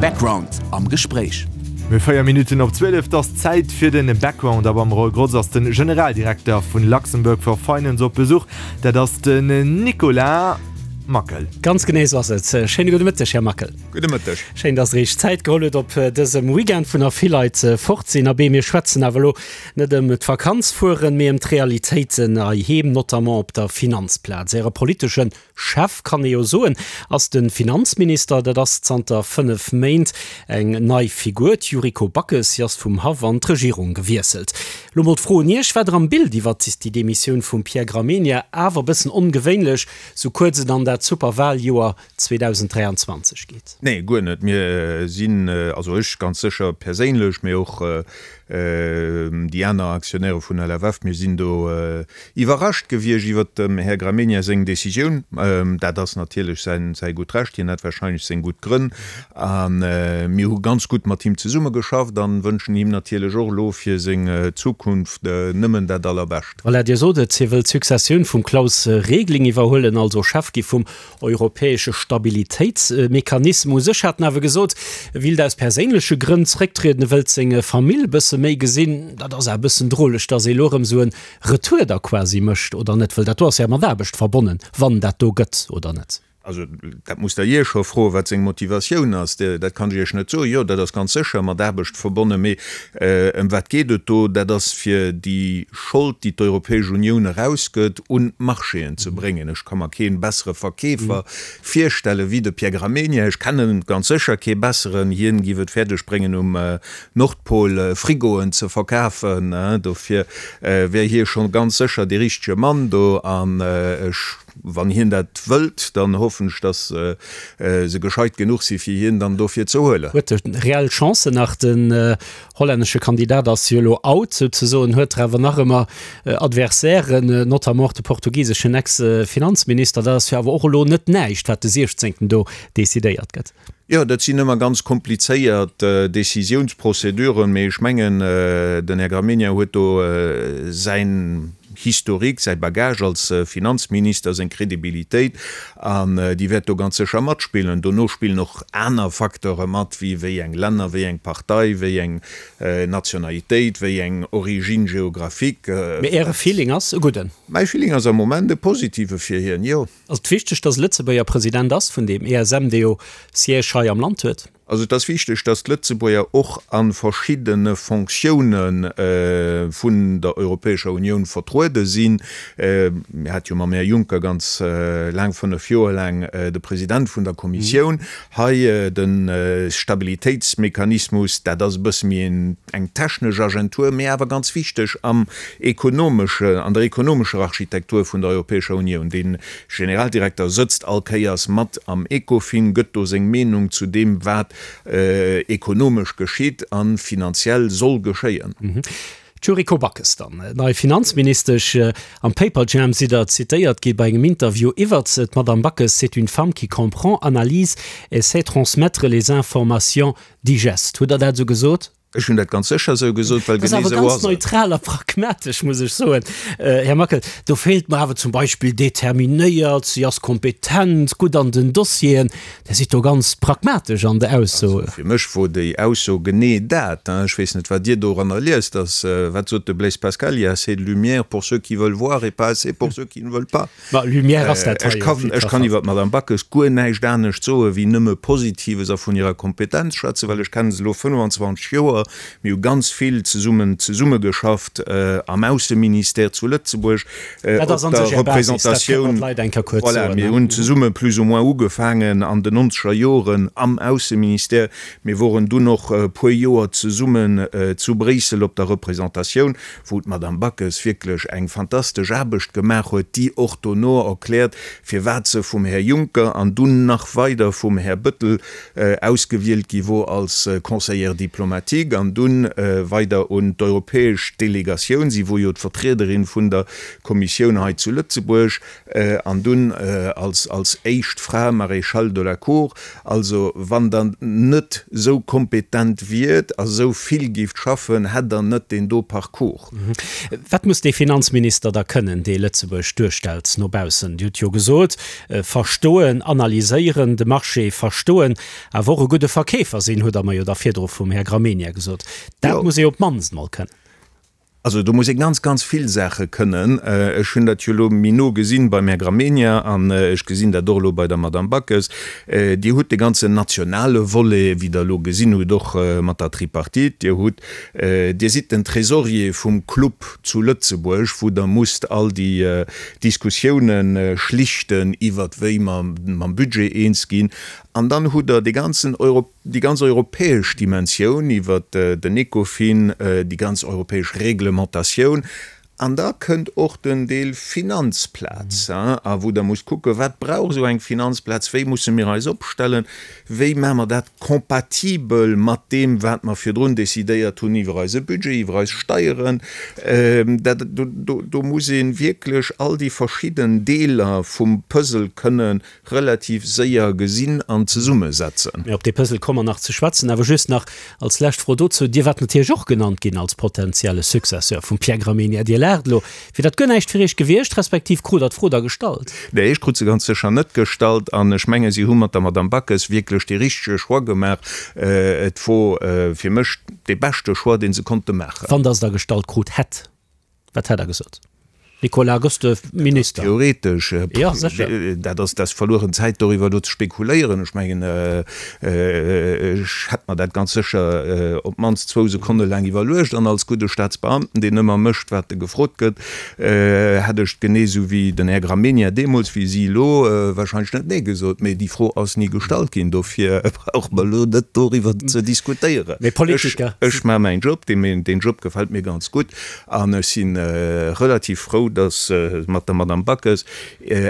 Background am Gespréich. Mir 4 Minutten op 12, 't ass Zäit fir den Background a beim Roy Grotz ass den Generaldirekter vun Luxembourg for Finance op Besuch. Dat ass den Nicolas Mackel. Ganz genee esou ass et. Schéine gudde Mëtteg, Här Mackel. Gudde Mëtteg. Schéin, dass Der Iech Zäit geholl hutt op dësem Weekend, wou nach vill Leit fort sinn. Abee, mir schwätzen awer elo net ëm d'Vakanz fueren, mee ëm d'Realitéiten heiheem, notamment op der Finanzplaz. Äre politeschen Chef, kann ee jo soen, ass de Finanzminister. Dat ass zanter 5 Méint eng nei Figur, d'Yuriko Backes. Si ass vum Haff an d'Regierung gewiesselt. Lo mol d'Fro un Iech, War der am Bild iwwert déi Demissioun vum Pierre Gramegna? Awer e bëssen ongewéinlech, sou kuerz et an dat super Wahljoer 2023 geet. Nee, guer net. Mir sinn, also ech ganz sécher perséinlech, mee och déi aner Aktionäre vun LFF, mir sinn do iwwerrascht gewiescht iwwert dem Här Gramegna seng Décisioun. Dat ass natierlech säi gutt Recht, hien hat wahrscheinlech seng gutt Grënn. A mir hu ganz gutt mat him zesummegeschafft a wënschen him natierlech och elo fir seng Zukunft nëmmen dat Allerbescht. Voilà, Dir sot et, hie wëll d'Successioun vum Klaus Regling iwwerhuelen, also Chef gi vum Europäesche Stabilitéitsmechanismus. U sech hat en awer gesot, e willt aus perséinleche Grënn zrécktrieden, e wëllt seng Famill e bësse méi gesinn. Dat ass awer e bëssen droleg, datt ee elo erëm esou e Retour da quasi mécht, oder net? Wëll dat do ass jo mat Aarbecht verbonnen, wann dat do gëtt, oder net? Also dat musst Der hie scho froen, wat seng Motivatioun ass. Dat kann ech Iech net soen. Jo, dat ass ganz sécher mat Aarbecht verbonnen. Mee ëm wat geet et do? Dat ass fir déi Schold, déi d'Europäesch Unioun erausgëtt, un d'Marchéen ze bréngen. Ech ka mer kee bessere Verkeefer virstelle wéi de Pierre Gramegna. Ech kenne ganz sécher kee besseren. Hien giff et fäerdeg bréngen um Nordpol Frigoen ze verkafen. Dofir wär hie scho ganz sécher dee richtege Mann do. An ech, wann hien dat wëllt, dann hoffen ech, datt se gescheit genuch si fir hien dann dofir ze huelen. Huet e reell Chancen nach den Hollännesche Kandidat ass jo elo out souzesoen, huet der awer nach ëmmer Adversairen, notamment och de portugiseschen Ex-Finanzminister. Dat ass jo awer och elo net näischt, wat de 16. do decidéiert gëtt. Jo, dat sinn ëmmer ganz komplizéiert Décisiounsprozeduren, mee ech mengen, den Här Gramegna huet do säin Historique, säi Bagage als Finanzminister, seng Crédibilitéit, an déi wäert do ganz sécher matspillen. Dono spillen och aner Facteure mat, wéi wéi eng Länner, wéi eng Partei, wéi eng Nationalitéit, wéi eng Origine géographique. Mee Äre Feeling ass e gudden? Mäi Feeling ass am Moment e positive fir hien, jo. Ass et wichteg, datt e Lëtzebuerger President ass vun deem ESM, dee jo Siège hei am Land huet? Also et ass wichteg, datt d'Lëtzebuerger och a verschiddene Fonctioune vun der Europäescher Unioun vertruede sinn. Mir hate jo mam Här Juncker ganz laang, 5 Joer laang, de President vun der Kommissioun hei. De Stabilitéitsmechanismus, dat ass e bësse méi eng technesch Agentur, mee awer ganz wichteg am ekonomesche, an der ekonomescher Architektur vun der Europäescher Unioun. Dee Generaldirekter sëtzt all Kéiers mat am Ecofin, gëtt do seng Meenung zu deem, wat ekonomesch geschitt a finanziell soll geschéien. D'Yuriko Backes dann, nei Finanzministesch. Am Paperjam sidd Der zitéiert gi bei engem Interview iwwert se, D'Madame Backes, c'est une femme qui comprend, analyse et sait transmettre les informations digestes. Hutt Der dat esou gesot? Ech hunn dat ganz sécher esou gesot, well genee esou ass et. Dat ass awer ganz neutral a pragmatesch, muss ech soen, Här Mackel. Do feelt mer awer zum Beispill determinéiert, si ass kompetent, gutt an den Dossieren. Dir sidd do ganz pragmatesch an der Ausso. Also fir mech wor déi Ausso genee dat. Ech weess net, wat Dir doranner liest. Dass, wat sot de Blaise Pascal, il y a assez de lumière pour ceux qui veulent voir et pas assez pour ceux qui ne veulent pas. Ma Lumière ass dat hei jo op jiddwer Fall. Ech kann iwwer d'Madame Backes guer näischt anescht soe wéi nëmme Positives a vun hirer Kompetenz schwätzen, well ech kenne se elo 25 Joer. Mir hu ganz vill zesummen zesummegeschafft am Ausseministère zu Lëtzebuerg, op der Représentatioun. Voilà, mir hunn zesumme plus ou moins ugefaangen an den nonzeger Joren am Ausseministère. Mir woren dunn och e puer Joer zesummen zu Bréissel op der Représentatioun. wou d'Madame Backes wierklech eng fantastesch Aarbecht gemaach huet, déi och dono erkläert, firwat se vum Här Juncker an dunn nach weider vum Här Bëttel ausgewielt gi wor als Conseillère diplomatique. Politik an dunn weider un d'europäesch Delegatioun. Si wor jo d'Vertriederin vun der Kommissioun hei zu Lëtzebuerg an dunn als als éischt Fra Maréchale de la Cour. Also wann Der net esou kompetent wiert a sou vill géift schaffen, hätt Der net deen do Parcours. Wat muss dee Finanzminister da kënnen, dee Lëtzebuerg duerstellt no baussen? Dir hutt jo gesot, verstoen, analyséieren, de Marché verstoen, awer och e gudde Verkeefer sinn, hutt Der mer jo da virdru vum Här Gramegna gesot. Dat muss ee op d'mannst mol kënnen. Also do muss ee ganz, ganz vill Saache kënnen. Ech hunn dat jo elo méi no gesinn beim Här Gramegna an ech gesinn dat och elo bei der Madame Backes. Dir hutt de ganzen nationale Volet, wéi Der elo gesinn hutt, och mat der Tripartite. Dir hutt, Dir sidd den Trésorier vum Club zu Lëtzebuerg, wou Der musst all déi Diskussiounen schlichten iwwert wéi mer mam Budget eens ginn. An dann hutt Der dee ganzen déi ganz europäesch Dimensioun iwwert den Ecofin, déi ganz europäesch Reglementatioun, an da kënnt och den Deel Finanzplaz, a wou Der musst kucken, wat brauch esou eng Finanzplaz, wéi musse mir eis opstellen, wéi maache mer dat compatibel mat deem, wat mer virdrun decidéiert hunn iwwer eise Budget, iwwer eis Steieren. Dat, do muss ee wierklech all déi verschidden Deeler vum Puzzle kënnen relativ séier gesinn an zesummesetzen. Mee op dee Puzzle komme mer nach ze schwätzen. Awer just nach als lescht Fro dozou, Dir waart natierlech och genannt ginn als potentielle Successeur vum Pierre Gramegna. Dir laacht elo. Wier dat guer näischt fir Iech gewiescht, respektiv krut Der d'Fro da gestallt? Nee, ech krut se ganz sécher net gestallt. An ech menge si hu mat der Madame Backes wierklech dee richtege Choix gemaach. Et wor fir mech dee beschte Choix, dee se konnte maachen. Wann Der se da gestallt krut hätt, Wat hätt Der gesot? Nicolas, gëss de Minister? Theoretesch, jo sécher. Dat ass dat verlueren Zäit doriwwer elo ze spekuléieren. Ech mengen, ech hätt mer dat ganz sécher op d'mannst zwou Sekonne laang iwwerluecht. An als gudde Staatsbeamten, deen ëmmer mécht, wat e gefrot gëtt, hätt ech genee esou wéi den Här Gramegna deemools, wéi si elo, wahrscheinlech net Nee gesot. Mee déi Fro ass ni gestallt ginn. Dofir brauche mer elo net doriwwer ze diskutéieren. Mee Politiker. Ech maache mäin Job. Deen Job gefält mir ganz gutt. An ech si relativ frou, datt se mat der Madame Backes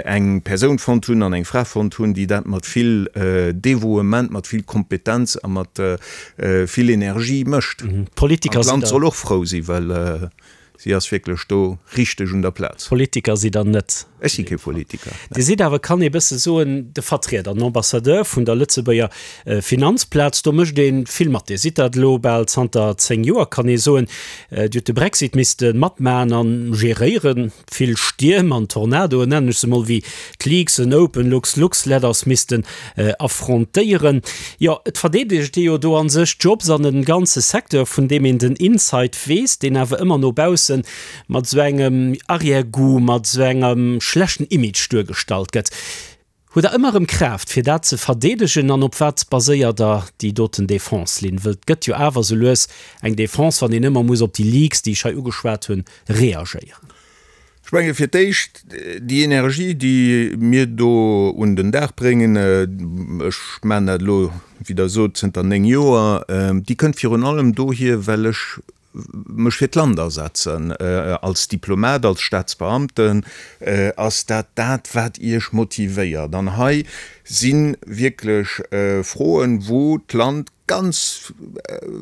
eng Persoun fonnt hunn an eng Fra fonnt hunn, déi dat mat vill Devouement, mat vill Kompetenz a mat vill Energie mécht. An d'Land soll och frou sinn, well si ass wierklech do richteg un der Plaz. Politiker sidd Der net. Ech si kee Politiker. Dir sidd awer, kann ee bësse soen, de Vertrieder, den Ambassadeur vun der Lëtzebuerger Finanzplaz. Do mécht ee vill mat. Dir sidd dat elo bal zanter 10 Joer, kann ee soen. Dir hutt de Brexit misste matmaen an geréieren, vill Stierm an Tornadoen, nennen ech se mol, wéi d'Leaks en Open Lux Lux Letters missten affrontéieren. Jo, et verdeedegt ee jo do an sech d'Jobs an en ganze Secteur, vun deem een den Inside weess, deen awer ëmmer no baussen mat esou engem Arrière-goût, mat esou engem schlechten Image duergestallt gëtt. Hutt Der ëmmer erëm Kraaft, fir dat ze verdeedegen? An op wat baséiert Der déi doten Defense-Linn? Wëll et gëtt jo awer esou lues eng Defense, wann een ëmmer muss op déi Leaks, déi ech hei ugeschwat hunn, reagéieren. Ech menge fir d'éischt, déi Energie, déi mir do un den Dag bréngen, ech maachen dat elo, wéi Der sot, zënter 9 Joer, déi kënnt virun allem dohier, well ech mech fir d'Land asetzen. Als Diplomat, als Staatsbeamten ass dat dat, wat Iech motivéiert. An hei si wierklech Froen, wou d'Land ganz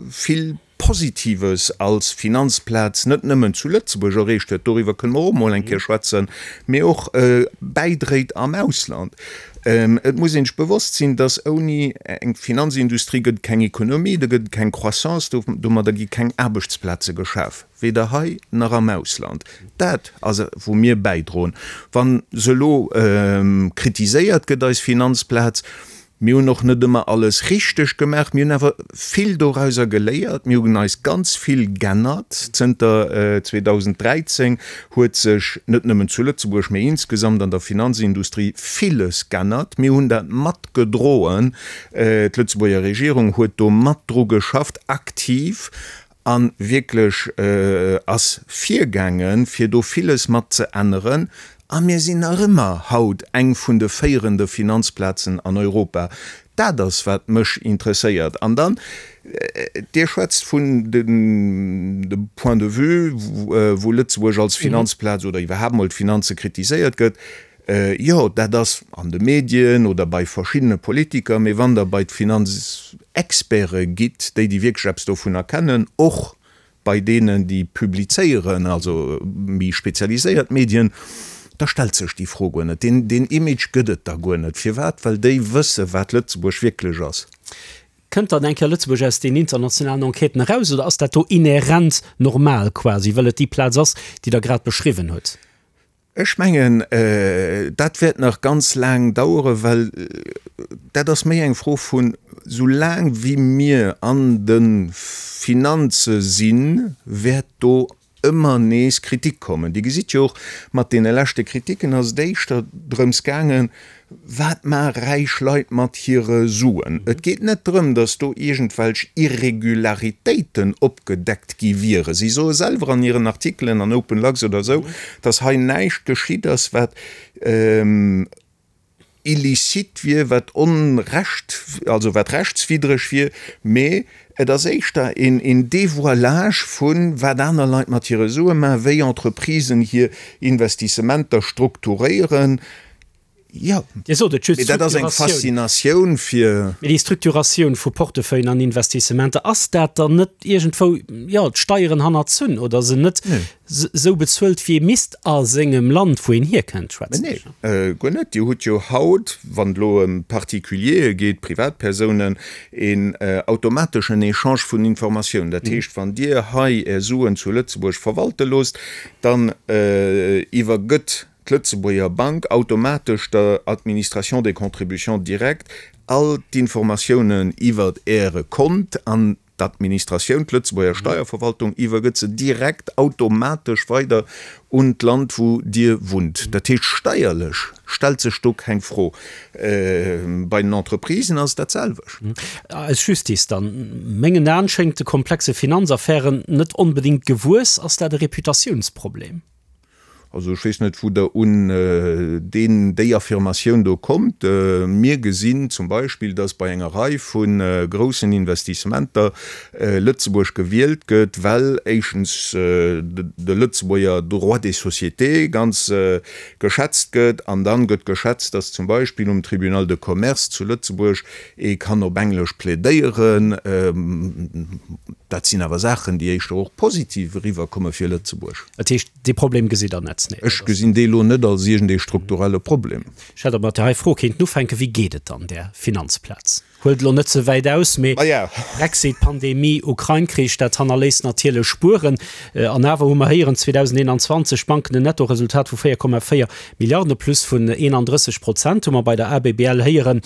vill Positives als Finanzplaz net nëmmen zu Lëtzebuerg erreecht huet, doriwwer kënne mer och emol eng Kéier schwätzen, mee och bäidréit am Ausland. Et muss een sech bewosst sinn, dass ouni eng Finanzindustrie gëtt et keng Ekonomie, do gëtt et keng Croissance, domadder gi keng Aarbechtsplaze geschaf, weder hei nach am Ausland. Dat ass wou mir bäidroen. Wa se elo kritiséiert gëtt, eis Finanzplaz, Mir hunn och net ëmmer alles richteg gemaach, mir hunn awer vill dorauser geléiert, mir hunn eis ganz vill g'ännert. Zënter 2013 huet sech net nëmmen zu Lëtzebuerg, mee insgesamt an der Finanzindustrie villes g'ännert. Mir hunn dat matgedroen, d'Lëtzebuerger Regierung huet do mat dru geschafft, aktiv, a wierklech ass virgaangen, fir do villes mat ze änneren. A mir sinn nach ëmmer haut eng vun de féierende Finanzplazen an Europa. Dat ass, wat mech interesséiert. An dann, Dir schwätzt vun dem Point de vue, wou Lëtzebuerg als Finanzplaz oder iwwerhaapt mol d'Finanze kritiséiert gëtt. Jo, dat ass an de Medien oder bei verschiddene Politiker, mee wann Der bei d'Finanz. Experte gitt, déi déi wierklech eppes dovunner kennen, och bei deenen, déi publizéieren, also méi spezialiséiert Medien, da stellt sech déi Fro guer net. Deen, deen Image gëtt et da guer net. Firwat? Well déi wësse wat Lëtzebuerg wierklech ass. Kënnt dann eng Kéier Lëtzebuerg aus den internationalen Enquêten eraus oder ass dat do inhärent normal quasi, well et déi Plaz ass, déi Der grad beschriwwen hutt? Ech mengen, dat wäert nach ganz laang daueren, well dat ass méi eng Fro vun, soulaang wéi mir an de Finanze sinn, wäert do ëmmer nees Kritik kommen. Dir gesitt jo och, mat deene leschte Kritiken ass et éischter drëms gaangen, Wat maache räich Leit mat hire Suen? Et geet net drëm, datt do iergendwelch Irregularitéiten opgedeckt gi wieren. Si soe selwer an hiren Artikelen an Open Lux oder esou, datt hei näischt geschitt ass, wat illicite wier, wat onrecht, also wat rechtswiddreg wier, mee et ass éischter een Dévoilage vu wat aner Leit mat hire Sue maachen, wéi Entreprisen hir Investissementer strukturéieren. Jo, Dir sot et just, mee dat ass eng Faszinatioun fir. Mee déi Structuratioun vu Portefeuillen an Investissementer, ass dat dann net iergendwou, jo, d'Steieren hannerzunn oder se net esou bezuelt, wéi ee misst a sengem Land, wou een hierkënnt, schwätzen ech? Nee, guer net. Dir hutt jo haut, wann et elo ëm Particuliere geet, Privatpersounen, een automateschen Echange vun Informatiounen. Dat heescht, wann Dir hei Är Suen zu Lëtzebuerg verwalte loosst, dann iwwergëtt d'Lëtzebuerger Bank automatesch der Administration des contributions directes all d'Informatiounen iwwert Äre Kont an d'Administratioun, d'Lëtzebuerger Steierverwaltung, iwwergëtt se direkt automatesch weider un d'Land, wou Dir wunnt. Dat heescht, steierlech stellt sech do keng Fro. Bei den Entreprisen ass et dat selwecht. Eis Justice dann, mengen Aen, schéngt de komplexe Finanzaffären net onbedéngt gewuess. Ass dat e Reputatiounsproblem? Also ech weess net, wou Der un deen, déi Affirmatioun do kommt. Mir gesinn zum Beispill, dass bei enger Rei vu groussen Investissementer Lëtzebuerg gewielt gëtt, well éischtens de Lëtzebuerger Droit des sociétés ganz geschätzt gëtt an dann gëtt geschätzt, dass zum Beispill um Tribunal de Commerce zu Lëtzebuerg ee kann op Englesch plädéieren. Dat sinn awer Saachen, déi éischter och positiv eriwwerkomme fir Lëtzebuerg. Dat heescht, dee Problem gesitt Der net? Nee, Ech gesinn dee elo net als iergendee strukturelle Problem. Ech hätt och mat där hei Fro kéinten ufänken, Wéi geet et dann där Finanzplaz? Huelt elo net ze wäit aus, mee Brexit, Pandemie, Ukrain-Krich, dat hannerléisst natierlech Spueren. An awer hu mer héieren, 2021 d'Banken en Nettoresultat vu 4,4 Milliarden, e Plus vun 31 Prozent hu mer bei der ABBL héieren.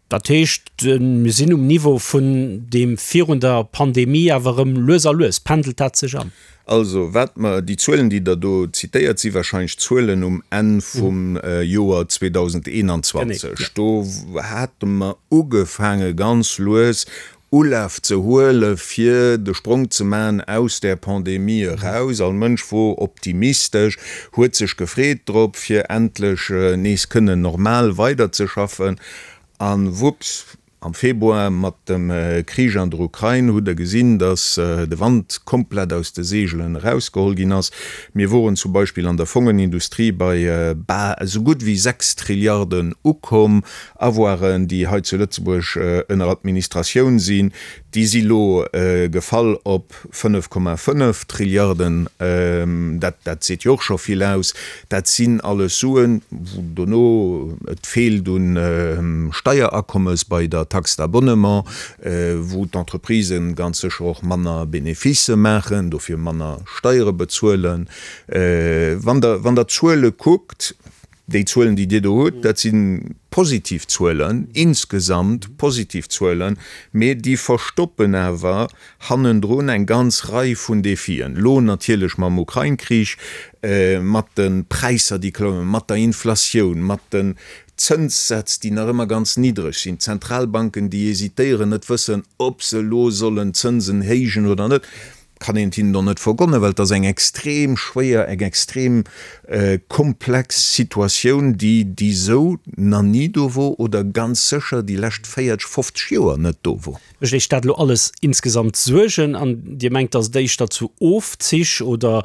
Dat heescht, mir sinn um Niveau vun deem virun der Pandemie, awer erëm lues a lues pendelt dat sech an. Also, wat mer, déi Zuelen, déi Der do zitéiert, si wahrscheinlech d'Zuelen um Enn vum Joer 2021. Do hate mer ugefaange ganz lues Ulaf ze huele fir de Sprong ze maachen aus där Pandemie eraus. All Mënsch wor optimistesch, huet sech gefreet drop, fir endlech nees kënnen normal weiderzeschaffen. A wupps, am Februar mat dem Krich an der Ukrain hutt Der gesinn, datt de Wand komplett aus de Seegelen erausgeholl ginn ass. Mir woren zum Beispill an der Fongenindustrie bei esou gutt wéi 6 Trilliarden ukomm. Avoiren, déi hei zu Lëtzebuerg ënner Administratioun sinn, déi si lo gefall op 5,5 Trilliarden. Dat, dat seet jo och scho vill aus. Dat sinn alles Suen, wou dono et feelt un Steierakommes bei der Taxe d'abonnement, wou d'Entreprisen ganz sécher och manner Beneficë maachen, dofir manner Steiere bezuelen. Wann Der, wann Der d'Zuele kuckt, Déi Zuelen, déi Dir do hutt, dat si positiv Zuelen, insgesamt positiv Zuelen, mee déi verstoppen awer hannendrun eng ganz Rei vun Defien. Elo natierlech mam Ukrain-Krich, mat de Präisser, déi klommen, mat der Inflatioun, mat den Zënssätz, déi nach ëmmer ganz niddreg sinn, d'Zentralbanken, déi hesitéieren, net wëssen, ob se elo sollen d'Zënsen héijen oder net. Kann een et hinnen och net vergonnen, well et ass eng extrem schwéier, eng extrem komplex Situatioun, déi déi esou na ni do wor oder ganz sécher déi lescht 40, 50 Joer net do wor. Mécht Iech dat elo alles insgesamt Suergen an Dir mengt, datt et éischter zu Ofzich oder,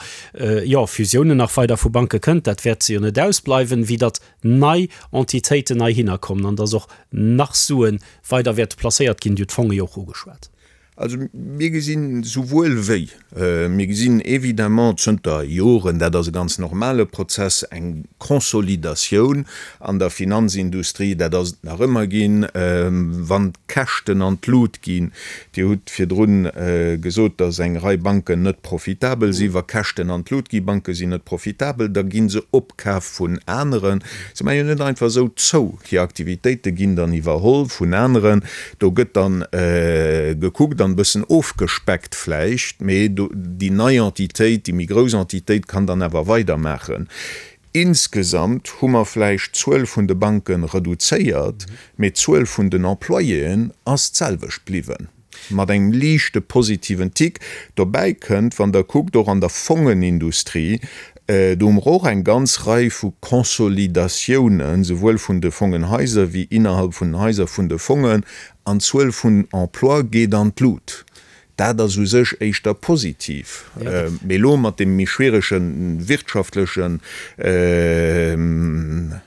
jo, Fusiounen nach weider vu Banke kënnt, dat wäert jo net ausbleiwen, wéi datt nei Entitéiten heihinner kommen an datt och nach Sue weider wäerte placéiert ginn? Dir hutt d'Fonge jo och ugeschwat. Also mir gesinn souwuel wéi. Mir gesinn évidemment zënter Joren, dat ass e ganz normale Prozess, eng Consolidatioun an der Finanzindustrie. Dat ass et nach ëmmer ginn, wann d'Käschten an d'Lut ginn. Dir hutt virdrun gesot, datt eng Rei Banken net profitabel sinn. Wa Käschten an d'Lut ginn, Banke sinn net profitabel, da gi se opkaf vun aneren. Se maache jo net einfach esou zou. Hir Aktivitéite ginn dann iwwerholl vun aneren. Do gëtt dann gekuckt an e bëssen ofgespeckt vläicht, mee déi nei Entitéit, déi méi grouss Entitéit kann dann awer weidermaachen. Insgesamt hu mer vläicht d'Zuel vun de Banke reduzéiert, mee d'Zuel vun den Employéen ass d'selwecht bliwwen. Mat engem liichte positiven Tick. Dobäi kënnt, wann Der kuckt, och an der Fongenindustrie, do hu mer och eng ganz Rei vu Consolidatiounen, souwuel vun de Fongenhaiser wéi innerhalb vun den Haiser vun de Fongen, an d'Zuel vun Emploie geet an d'Lut. Dat ass u sech éischter positiv. Mee elo mat deem méi schwierege wirtschaftlechen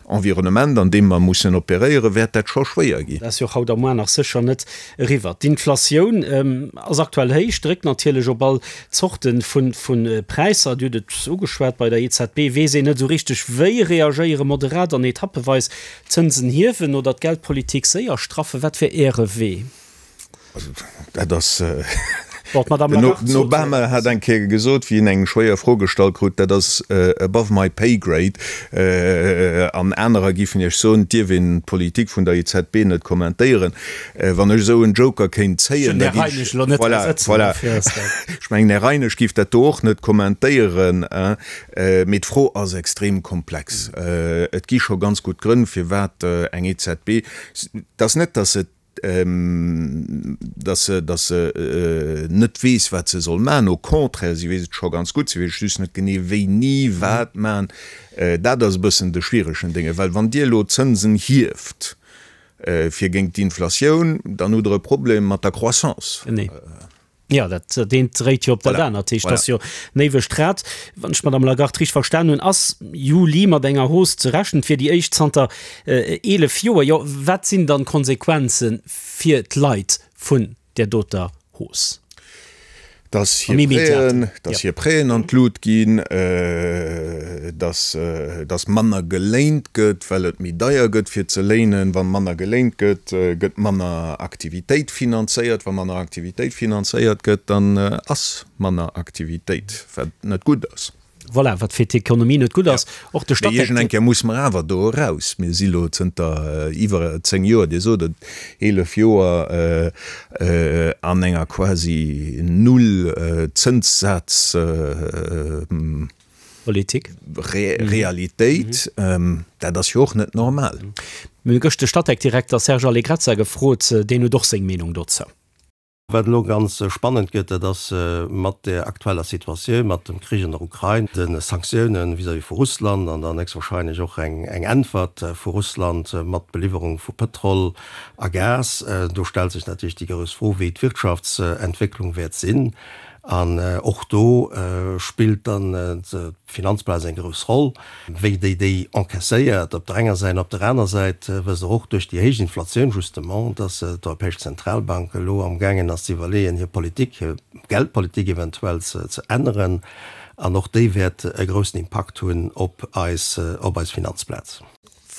Environnement, an deem mer mussen operéieren, wäert dat scho schwéier ginn. Dat ass jo och haut a muar nach sécher net eriwwer. D'Inflatioun ass aktuell héich, dréckt natierlech op all Zorte vu Präisser. Dir hutt et ugeschwat, bei der EZB weess een net esou richteg wéi reagéieren, moderat an etappeweis d'Zënsen hiewen oder d'Geldpolitik séier straffen. Wat wär Äre Wee? Also dat ass, den Obama hat eng Kéier gesot, wéi en eng schwéier Fro gestallt krut, dat ass above my pay grade. An anerer géifen Iech soen, et dierf een d'Politik vun der EZB net kommentéieren. Wann ech esou en Joker kéint zéien, da géif ech, voilà, voilà, ech mengen, Här Reinesch géif dat do och net kommentéieren. Mee d'Fro ass extrem komplex. Et gi scho ganz gutt Grënn, firwat eng EZB, et ass net, datt se dass se, dass se net weess, wat se soll maachen. Au contraire, si weess et scho ganz gutt, si weess just net genee wéini wat maachen. Dat ass e bëssen de schwieregen Dénge, well wann Dir elo d'Zënsen hieft fir géint d'Inflatioun, dann hutt Der e Problem mat der Croissance. Genee. Jo, dat eent dréit jo op dat anert. Dat heescht, et ass jo en éiwegt Rad. Wann ech d'Madame Lagarde richteg verstan hunn, ass Juli mat enger Hausse ze rechnen. Et wier déi éischt zanter 11 Joer. Jo, wat sinn dann d'Konsequenze fir d'Leit vun där doter Hausse? Dass hir Prêten, dass hir Prêten an d'Lut ginn, dass, dass manner geléint gëtt, well et méi deier gëtt fir ze léinen. Wa manner geléint gëtt, gëtt manner Aktivitéit finanzéiert. Wa manner Aktivitéit finanzéiert gëtt, dann ass manner Aktivitéit, wat net gutt ass. Voilà, wat fir d'Ekonomie net gutt ass. Och de Statec. Mee iergend eng Kéier musse mer awer do eraus. Mir si lo zënter iwwer 10 Joer, Dir sot et, 11 Joer an enger quasi Null-Zënssaz. Politik. Realitéit. Dat ass jo och net normal. Mir hu gëscht de Statec-Direkter Serge Allegrezza gefrot. Deen huet och seng Meenung dozou. Wat elo ganz spannend gëtt, dat ass mat der aktueller Situatioun, mat dem Krich an der Ukrain, de Sanktioune vis-à-vis vu Russland an dann héchstwahrscheinlech och eng Äntwert vu Russland mat Beliwwerung vu Pëtrol a Gas. Do stellt sech natierlech déi grouss Fro, wéi d'Wirtschaftsentwécklung wäert sinn. An och do spillt dann d'Finanzplaz eng grouss Roll, wéi déi déi encaisséiert op der enger Säit. An op der aner Säit wësst Der och duerch déi héich Inflatioun justement, dass d'Europäesch Zentralbank elo amgaangen ass ze iwwerleeën, hir Politik, hir Geldpolitik eventuell ze änneren. An och déi wäert e groussen Impakt hunn op eis, op eis Finanzplaz.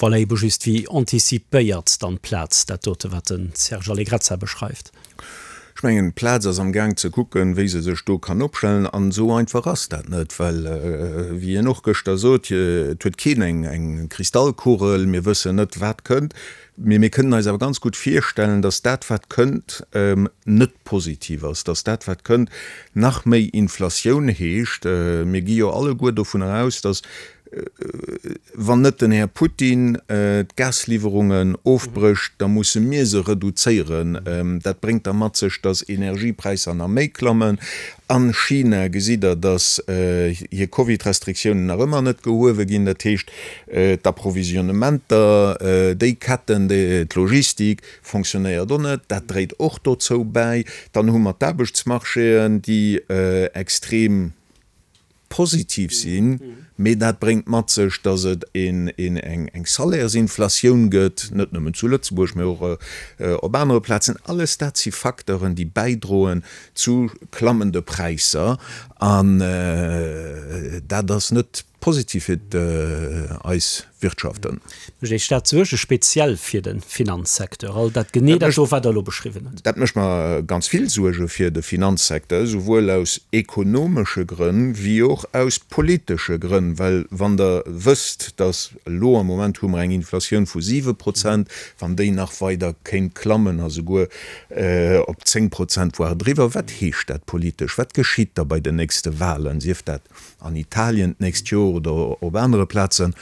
Voilà, ebe just, wéi anticipéiert dann d'Plaz dat dote wat de Serge Allegrezza beschreift? Ech mengen, d'Plaz ass am Gaang ze kucken, wéi se sech do kann opstellen. An esou einfach ass dat net, well, wéi hien och gëschter sot, et huet keen eng Kristallkugel, mir wëssen net, wat kënnt. Mee mir kënnen eis awer ganz gutt virstellen, datt dat, wat kënnt, net positiv ass, datt dat, wat kënnt, nach méi Inflatioun heescht. Mir gi jo alleguer dovunner aus, datt. Wann net den Här Putin d'Gasliwwerungen ofbrécht, da musse mir se reduzéieren. Dat bréngt da mat sech, datt Energiepräisser nach méi klammen. A China gesitt Der, datt hir Covid-Restriktiounen nach ëmmer net gehuewe ginn. Dat heescht, d'Approvisionnementer, déi Ketten, d'Logistik fonctionnéiert och net. Dat dréit och dozou bäi. Dann hu mer d'Aarbechtsmarchéen, déi extrem positiv sinn, mee dat bréngt mat sech, datt et eng Salairsinflatioun gëtt, net nëmmen zu Lëtzebuerg, mee och op anere Plazen. Alles dat si Facteuren, déi bäidroen zu klammende Präisser an dat ass net positiv fir eis Wirtschaften. Mécht Iech dat Suerge speziell fir de Finanzsecteur, all dat, genee dat do, wat Der elo beschriwwen hutt? Dat mécht mer ganz vill Suerge fir de Finanzsecteur, souwuel aus ekonomesche Grënn wéi och aus politesche Grënn. Well wann Der wësst, datt elo am Moment hu mer eng Inflatioun vu 7 Prozent, wann déi nach weider kéint klammen a souguer op 10 Prozent, voire driwwer, wat heescht dat politesch? Wat geschitt da bei den nächste Wahlen, sief dat an Italien d'nächst Joer oder op anere Plazen,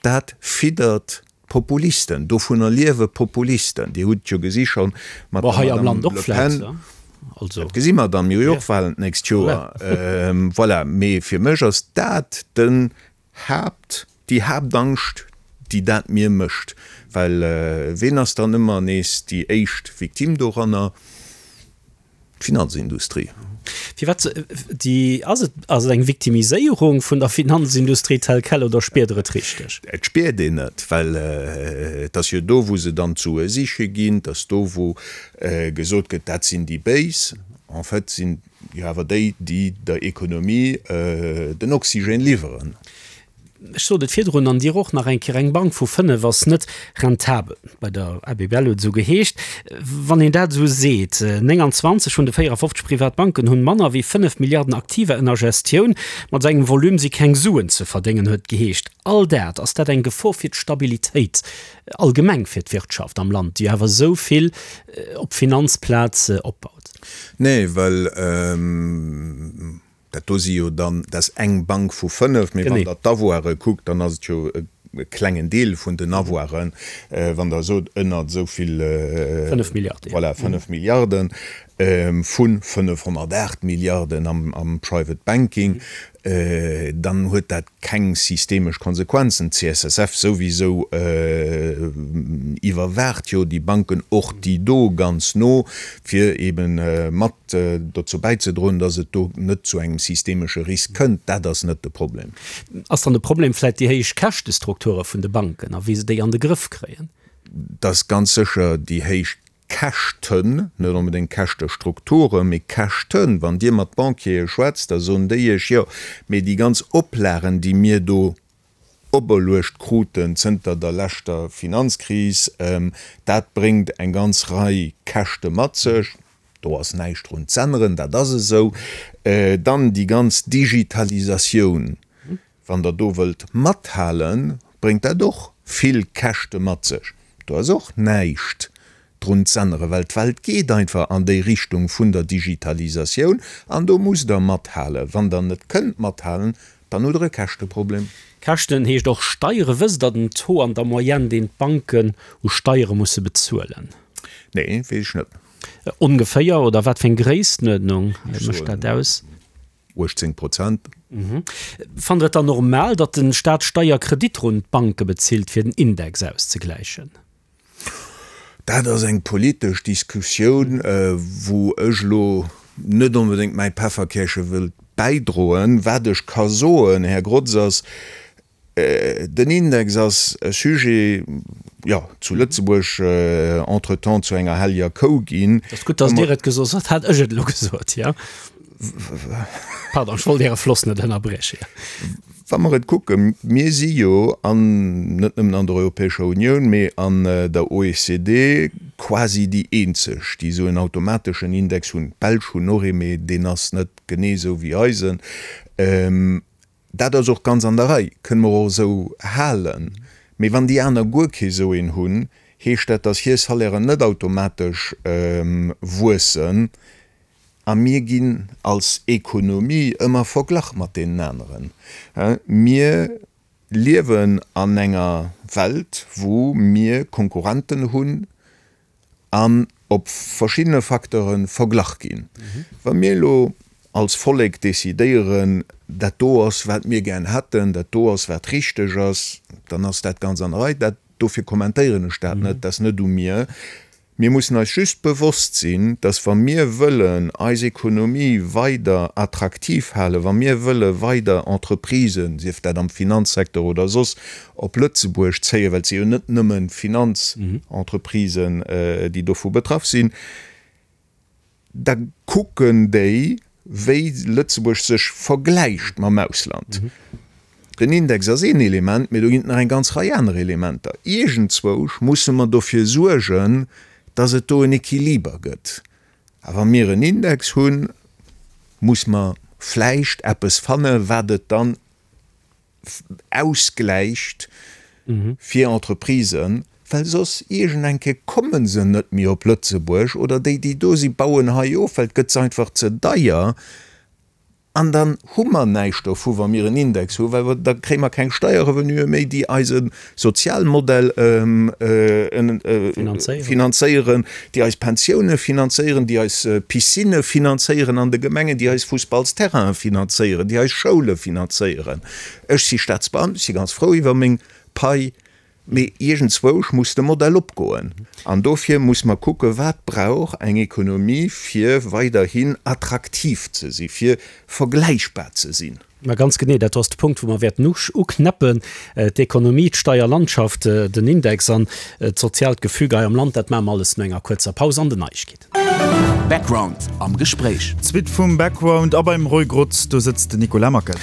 dat fiddert d'Populisten. Dovunner liewe Populisten. Dir hutt et jo gesi scho mat der Madame Le Pen. Dat gesi mer dann. Mir hu jo och Wahlen d'nächst Joer. Voilà. Mee fir mech ass dat den Haapt, déi Haaptangscht, déi dat mir mécht. Well ween ass dann ëmmer nees déi éischt Victime doranner? D'Finanzindustrie. Firwat déi? Ass et, ass et eng Victimiséierung vun der Finanzindustrie tel quel oder spiert Der et richteg? Et spiert een et, well et ass jo do, wou se dann d'Sue siche ginn, et ass do, wou gesot gëtt, dat sinn déi Béis. En fait sinn jo awer déi, déi der Ekonomie den Oxygène liwweren. Ech sot et virdrun, an Dir och nach eng Kéier, eng Bank vu 5 ass net rentabel. Bei der ABBL huet et esou geheescht. Wann een dat esou seet, 29 vun de 54 Privatbanken hunn manner wéi 5 Milliarden Aktiva ënner Gestioun, mat esou engem Volume si keng Suen ze verdéngen, huet et geheescht. All dat, ass dat eng Gefor fir d'Stabilitéit allgemeng fir d'Wirtschaft am Land, déi awer esou vill op d'Finanzplaz opbaut? Nee, well Dat do si jo dann, dat ass eng Bank vu 5, mee wann Der d'Avoire kuckt, dann ass et jo e klengen Deel vun den Avoiren, wann Der sot ënnert esou vill, 5 Milliarden, voilà, 5 Milliarden vu 508 Milliarden am Private Banking, dann huet dat keng systemesch Konsequenzen. D'CSSF souwisou iwwerwaacht jo déi Banken, och déi do, ganz no, fir eebe mat dozou bäizedroen, datt et do net zu engem systemesche Risk kënnt. Dat ass net de Problem. Ass dann de Problem vläicht déi héich Käschtestrukture vun de Banken a wéi se déi an de Grëff kréien? Dat ass ganz sécher déi héich Käschten, net onbedéngt Käschtestrukturen, mee Käschten. Wann Dir mat Banquiere schwätzt, da soen déi Iech, jo, mee déi ganz Oplagen, déi mir do operluecht kruten zënter der leschter Finanzkris, dat bréngt eng ganz Rei Käschte mat sech. Do ass näischt drun z'änneren, dat ass esou. Dann déi ganz Digitalisatioun, Wann Der do wëllt mathalen, bréngt dat och vill Käschte mat sech. Do ass och näischt drun z'änneren, well d'Welt geet einfach an déi Richtung vun der Digitalisatioun an do musst Der mathalen. Wann Der net kënnt mathalen, dann hutt Der e Käschteproblem. Käschten heescht och Steiere. Wësst Der den Taux an der Moyenne, deen d'Banken u Steiere musse bezuelen? Nee, weess ech net. Ongeféier, oder wat fir eng Gréisstenuerdnung mécht dat aus? 18 Prozent. Fannt Der et dann normal, datt de Staat Steierkreditter un d'Banke bezilt, fir den Index auszegläichen? Dat ass eng politesch Diskussioun, wou ech elo net onbedéngt mäi Pefferkäerche wëllt bäidroen. Wat ech ka soen, Här Grotz, ass, Den Index ass e Sujet, jo, zu Lëtzebuerg entretemps zu enger helleger Kou ginn. Et ass gutt, dass Dir et gesot hutt, hätt ech et elo gesot, jo. Pardon, ech wollt Äre Floss net ënnerbrieche. Wa mer et kucken, mir si jo an, net nëmmen an der Europäescher Unioun, mee an der OECD quasi déi eenzeg, déi esou en automateschen Index hunn. D'Belsch hunn och ee, mee deen ass net genee esou wéi eisen. Dat ass och ganz an der Rei, kënne mer och esou halen. Mee wann déi aner guer kee sou een hunn, heescht dat, datt hir Salairen net automatesch wuessen. A mir ginn als Ekonomie ëmmer verglach mat deenen aneren. Mir. Liewen an enger Welt, wou mir Konkurrenten hunn an op verschiddene Facteure verglach ginn. Wa mir elo als Vollek decidéieren, dat do ass, wat mir gär hätten, dat do ass, wat richteg ass, dann ass dat ganz an der Rei. Dat, dofir kommentéieren ech dat net, dat ass net u mir. Mir mussen eis just bewosst sinn, dass wa mir wëllen eis Ekonomie weider attraktiv halen, wa mir wëlle weider Entreprisen, sief dat am Finanzsecteur oder soss, op Lëtzebuerg zéien, well et si jo net nëmmen d'Finanzentreprisen, déi dovu betraff sinn, da kucken déi, wéi Lëtzebuerg sech vergläicht mam Ausland. Den Index ass een Element, mee do ginn et nach eng ganz Rei aner Elementer. Iergendzwousch musse mer dofir suergen, dass et do en Equiliber gëtt. A wa mir en Index hunn, muss mer vläicht eppes fanne wat et dann ausgläicht fir Entreprisen, well soss iergend eng Kéier komme se net méi op Lëtzebuerg oder déi, déi do si bauen hei of, well et gëtt se einfach ze deier an dann hu mer näischt dovu wa mir en Index hu, well da kréie mer keng Steierrevenuë méi, déi eise Sozialmodell finanzéieren, déi eis Pensioune finanzéieren, déi eis Piscinne finanzéieren an de Gemengen, déi eis Fussballsterrainen finanzéieren, déi eis Schoule finanzéieren. Ech si Staatsbeamten, ech si ganz frou iwwer meng Pai, mee iergendzwousch muss de Modell opgoen. An dofir muss mer kucken, wat brauch eng Ekonomie, fir weiderhin attraktiv ze si, fir vergläichbar ze sinn. Ma ganz genee, dat ass de Punkt, wou mer wäerten uknäppen, d'Ekonomie, d'Steierlandschaft, den Index an d'soziaalt Gefüge hei am Land. Dat maache mer alles no enger kuerzer Paus an den Neiegkeeten. Background am Gespréich. D'Suite vum Background a beim Roy Grotz, do sëtzt den Nicolas Mackel.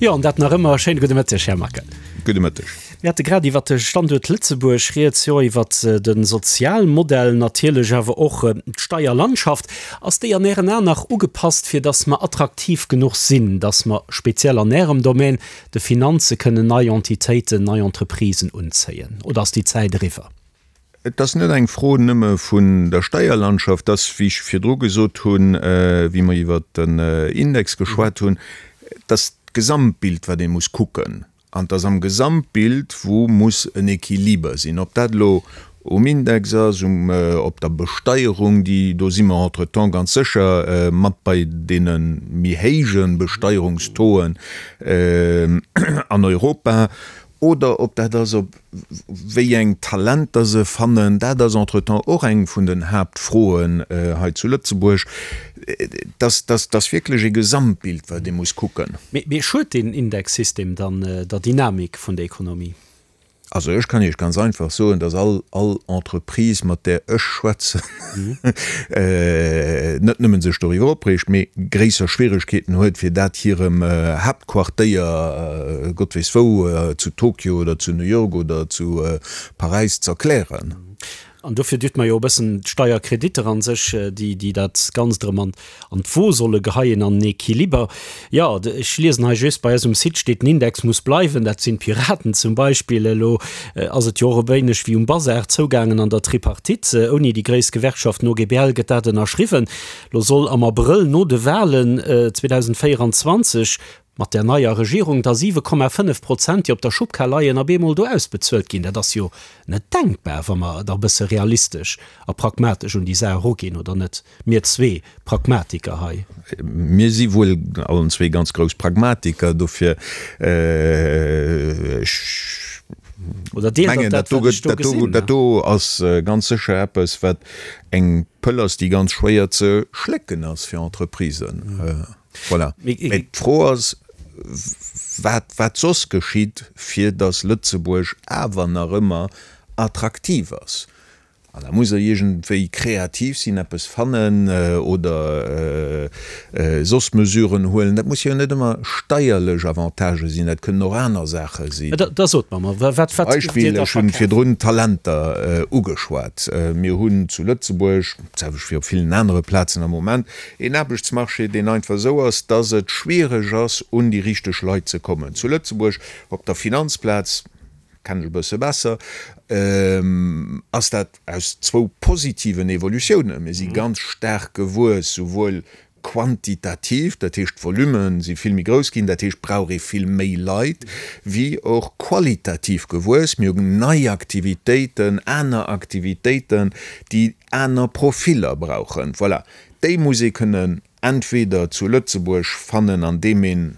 Jo, an dat nach ëmmer. Schéine gudde Mëtteg, Här Mackel. Gudde Mëtteg. Mir hate grad iwwert de Standuert Lëtzebuerg rieds, jo iwwert de Sozialmodell, natierlech awer och d'Steierlandschaft. Ass déi an Ären Aen nach ugepasst, fir datt mer attraktiv genuch sinn, datt mer speziell an Ärem Domän, de Finanze, kënnen nei Entitéiten, nei Entreprisen unzéien? Oder ass déi Zäit eriwwer? Et ass net eng Fro nëmme vun der Steierlandschaft, et ass, wéi ech virdru gesot hunn, wéi mer iwwert den Index geschwat hunn, et ass d'Gesamtbild, wat ee muss kucken. An et ass am Gesamtbild, wou muss en Equiliber sinn, ob dat elo um Index ass, um, op der Besteierung, déi, do si mer entretemps ganz sécher mat bei deene méi héije Besteierungstauxen an Europa, oder ob dat ass, op wéi eng Talenter se fannen, dat ass entretemps och eng vun den Haaptfroen hei zu Lëtzebuerg. Dass, dass, dass wierklech e Gesamtbild, wat ee muss kucken. Mee schued deen Indexsystem dann der Dynamik vun der Ekonomie? Also ech kann Iech ganz einfach soen, dass all, all Entreprise, mat där ech schwätzen, net nëmmen sech doriwwer opreegt, mee gréisser Schwieregkeeten huet, fir dat hirem Haaptquartéier, Gott weess wou, zu Tokio oder zu New York oder zu Paräis z'erklären. An dofir düt mer jo e bëssen d'Steierkreditter a sech, déi, déi dat Ganzt erëm an, an d'Wo solle geheien, an den Equiliber. Jo, ech liesen hei just, bei eis um Site steet, den Index muss bleiwen. Dat sinn d'Piraten zum Beispill. Elo ass et jo och e wéineg wéi um Bazar zougaangen an der Tripartite. Ouni déi gréisst Gewerkschaft, den OGBL, gëtt dat ënnerschriwwen. Elo soll am Abrëll no de Walen 2024, Mat där neier Regierung da 7,5 Prozent, déi op der Schubkar leien, op eemol do ausbezuelt ginn, dat ass jo net denkbar, wa mer da e bësse realistesch a pragmatesch un déi Saach eruginn, oder net? Mir zwee Pragmatiker hei. Mir si wuel allen zwee ganz grouss Pragmatiker, dofir, ech mengen, dat do gëtt, dat do ass ganz sécher eppes, wat eng Pëll ass, déi ganz schwéier ze schlécken ass fir Entreprisen. Voilà. Mee d'Fro ass, wat, wat soss geschitt, fir datt Lëtzebuerg awer nach ëmmer attraktiv ass. An da muss Der iergendwéi kreativ sinn, eppes fannen oder soss Mesuren huelen. Dat musse jo net ëmmer steierlech Avantagë sinn, dat kënnen och aner Saache sinn. Da sot mer mol, wat, wat giff Dir da Beispill, ech hunn virdrun d'Talenter ugeschwat. Mir hunn zu Lëtzebuerg, d'selwecht wéi op villen anere Plazen am Moment, Een Aarbechtsmarché, deen einfach esou ass, dass et schwiereg ass, un déi richteg Leit ze kommen. Zu Lëtzebuerg op der Finanzplaz, kennen ech e bësse besser, ass dat aus zwou positiven Evolutiounen. Mir si ganz staark gewuess, souwuel. quantitativ, dat heescht d'Volume si vill méi grouss ginn, dat heescht brauch ee vill méi Leit, wéi och qualitativ gewuess. Mir hunn nei Aktivitéiten, aner Aktivitéiten, déi aner Profiller brauchen. Voilà, déi muss ee kënnen entweder zu Lëtzebuerg fannen, andeem een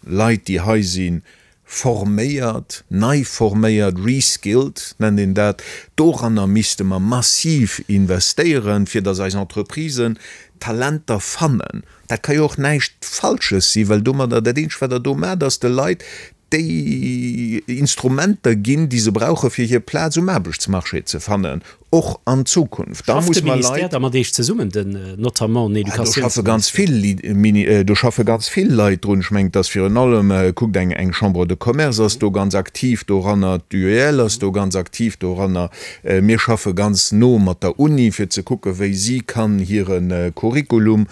Leit, déi hei sinn, forméiert, nei forméiert, reskilled nennt een dat. Doranner misste mer massiv investéieren, fir datt eis Entreprisen Talenter fannen. Dat ka jo och näischt Falsches sinn, well domadder, dat eenzegt wat Der do maacht, ass de Leit déi Instrumenter ginn, déi se brauchen, fir hir Plaz um Aarbechtsmarché ze fannen, och an Zukunft. Da muss mer Leit. Schafft de Ministère da mat Iech zesummen, den notamment den Educatiounsministère? Do schaffe ganz vill Leit drun. Ech mengen, et ass virun allem, kuckt, eng Chambre de Commerce ass do ganz aktiv doranner, d'UEL ass do ganz aktiv doranner. Mir schaffe ganz no mat der Uni, fir ze kucken, wéi si kann hire Curriculum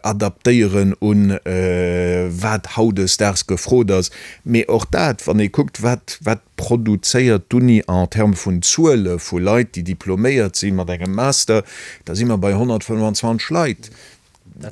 adaptéieren un wat hautdesdaags gefrot ass. Mee och dat, wann ee kuckt, wat, wat produzéiert d'Uni en termes vun Zuele vu Leit, déi diploméiert si mat engem Master, da si mer bei 125 Leit.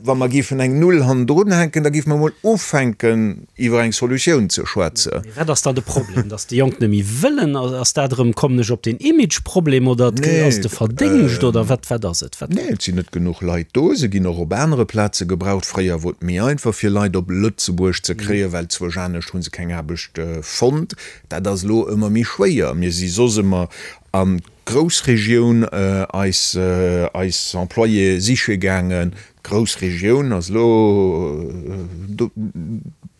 Wa mer géifen eng Null hannendrun hänken, da géife mer emol ufänken, iwwer eng Solutioun ze schwätzen. Mee wat ass dann de Problem? Datt déi Jonk net méi wëllen? Ass dat erëm, kommen ech op den Imageproblem oder ass et de Verdéngscht oder wat, wat ass et? Wat. Nee, et sinn net genuch Leit do. Se ginn och op anere Plaze gebraucht. Fréier wor et méi einfach fir Leit op Lëtzebuerg ze kréien, well zwousch anescht hu se keng Aarbecht fonnt. Dat ass elo ëmmer méi schwéier. Mir si soss ëmmer an d'Groussregioun eis eis Employéë siche gaangen. D'Groussregioun ass elo do,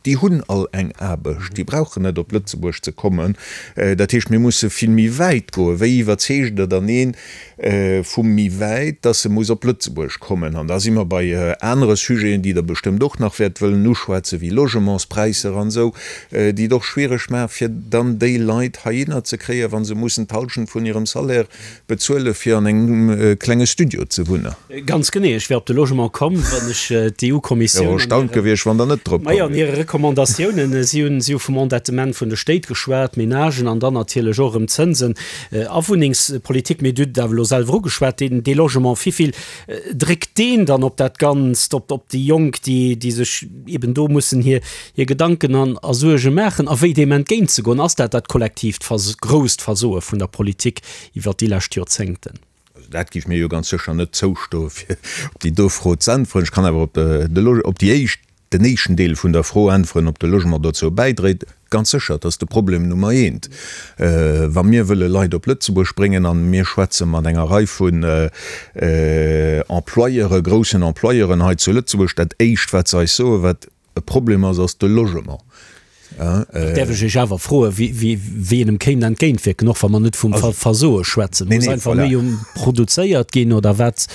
déi hunn all eng Aarbecht, déi brauchen net op Lëtzebuerg ze kommen. Dat heescht, mir musse vill méi wäit goen. Wéi iwwerzeegt Der dann een vu méi wäit, dass e muss op Lëtzebuerg kommen? An da si mer bei anere Sujeten, déi Der bestëmmt och nach wäert wëllen uschwätzen, wéi Logementspräisser an esou, déi et och schwiereg maachen, fir dann déi Leit heihinner ze kréien, wa se mussen d'Hallschent vun hirem Salaire bezuele fir an engem klenge Studio ze wunnen. Ganz genee. Ech wär op de Logement komm, wann ech d'EU-Kommissioun. Wär och erstaunt gewiescht, wann Der net drop komm wiert. Majo, an hire Recommandatiounen, si hunn, si hu vum Endettement vun de Stéit geschwat, Menagen an dann natierlech och erëm Zënsen a Wunnengspolitik. Mee Dir hutt et awer elo selwer ugeschwat, deen, dee Logement, wivill dréckt deen dann op dat Ganzt, op, op déi Jonk, déi, déi sech eben do mussen hir, hir Gedanken an a Suerge maachen a wéi deem entgéintzegoen? Ass dat dat kollektiivt Vers, grousst Versoe vun der Politik iwwert déi lescht Joerzéngten? Also dat géif mir jo ganz sécher net zoustoen, fir op déi do Fro ze äntweren. Ech kann awer op de, op déi éischt, den éischten Deel vun der Fro äntweren, ob de Logement dozou bäidréit. Ganz sécher, et ass de Problem Nummer eent. Wa mir wëlle Leit op Lëtzebuerg bréngen, a mir schwätze mat enger Rei vun Employeuren, groussen Employeuren hei zu Lëtzebuerg, dat éischt wat se eis soen, wat E Problem ass, ass de Logement. Dat däerf ech Iech awer froen, wéi een em kéint entgéintwierken, och wa mer net vum Versoe schwätzen. Muss einfach méi produzéiert ginn oder wat,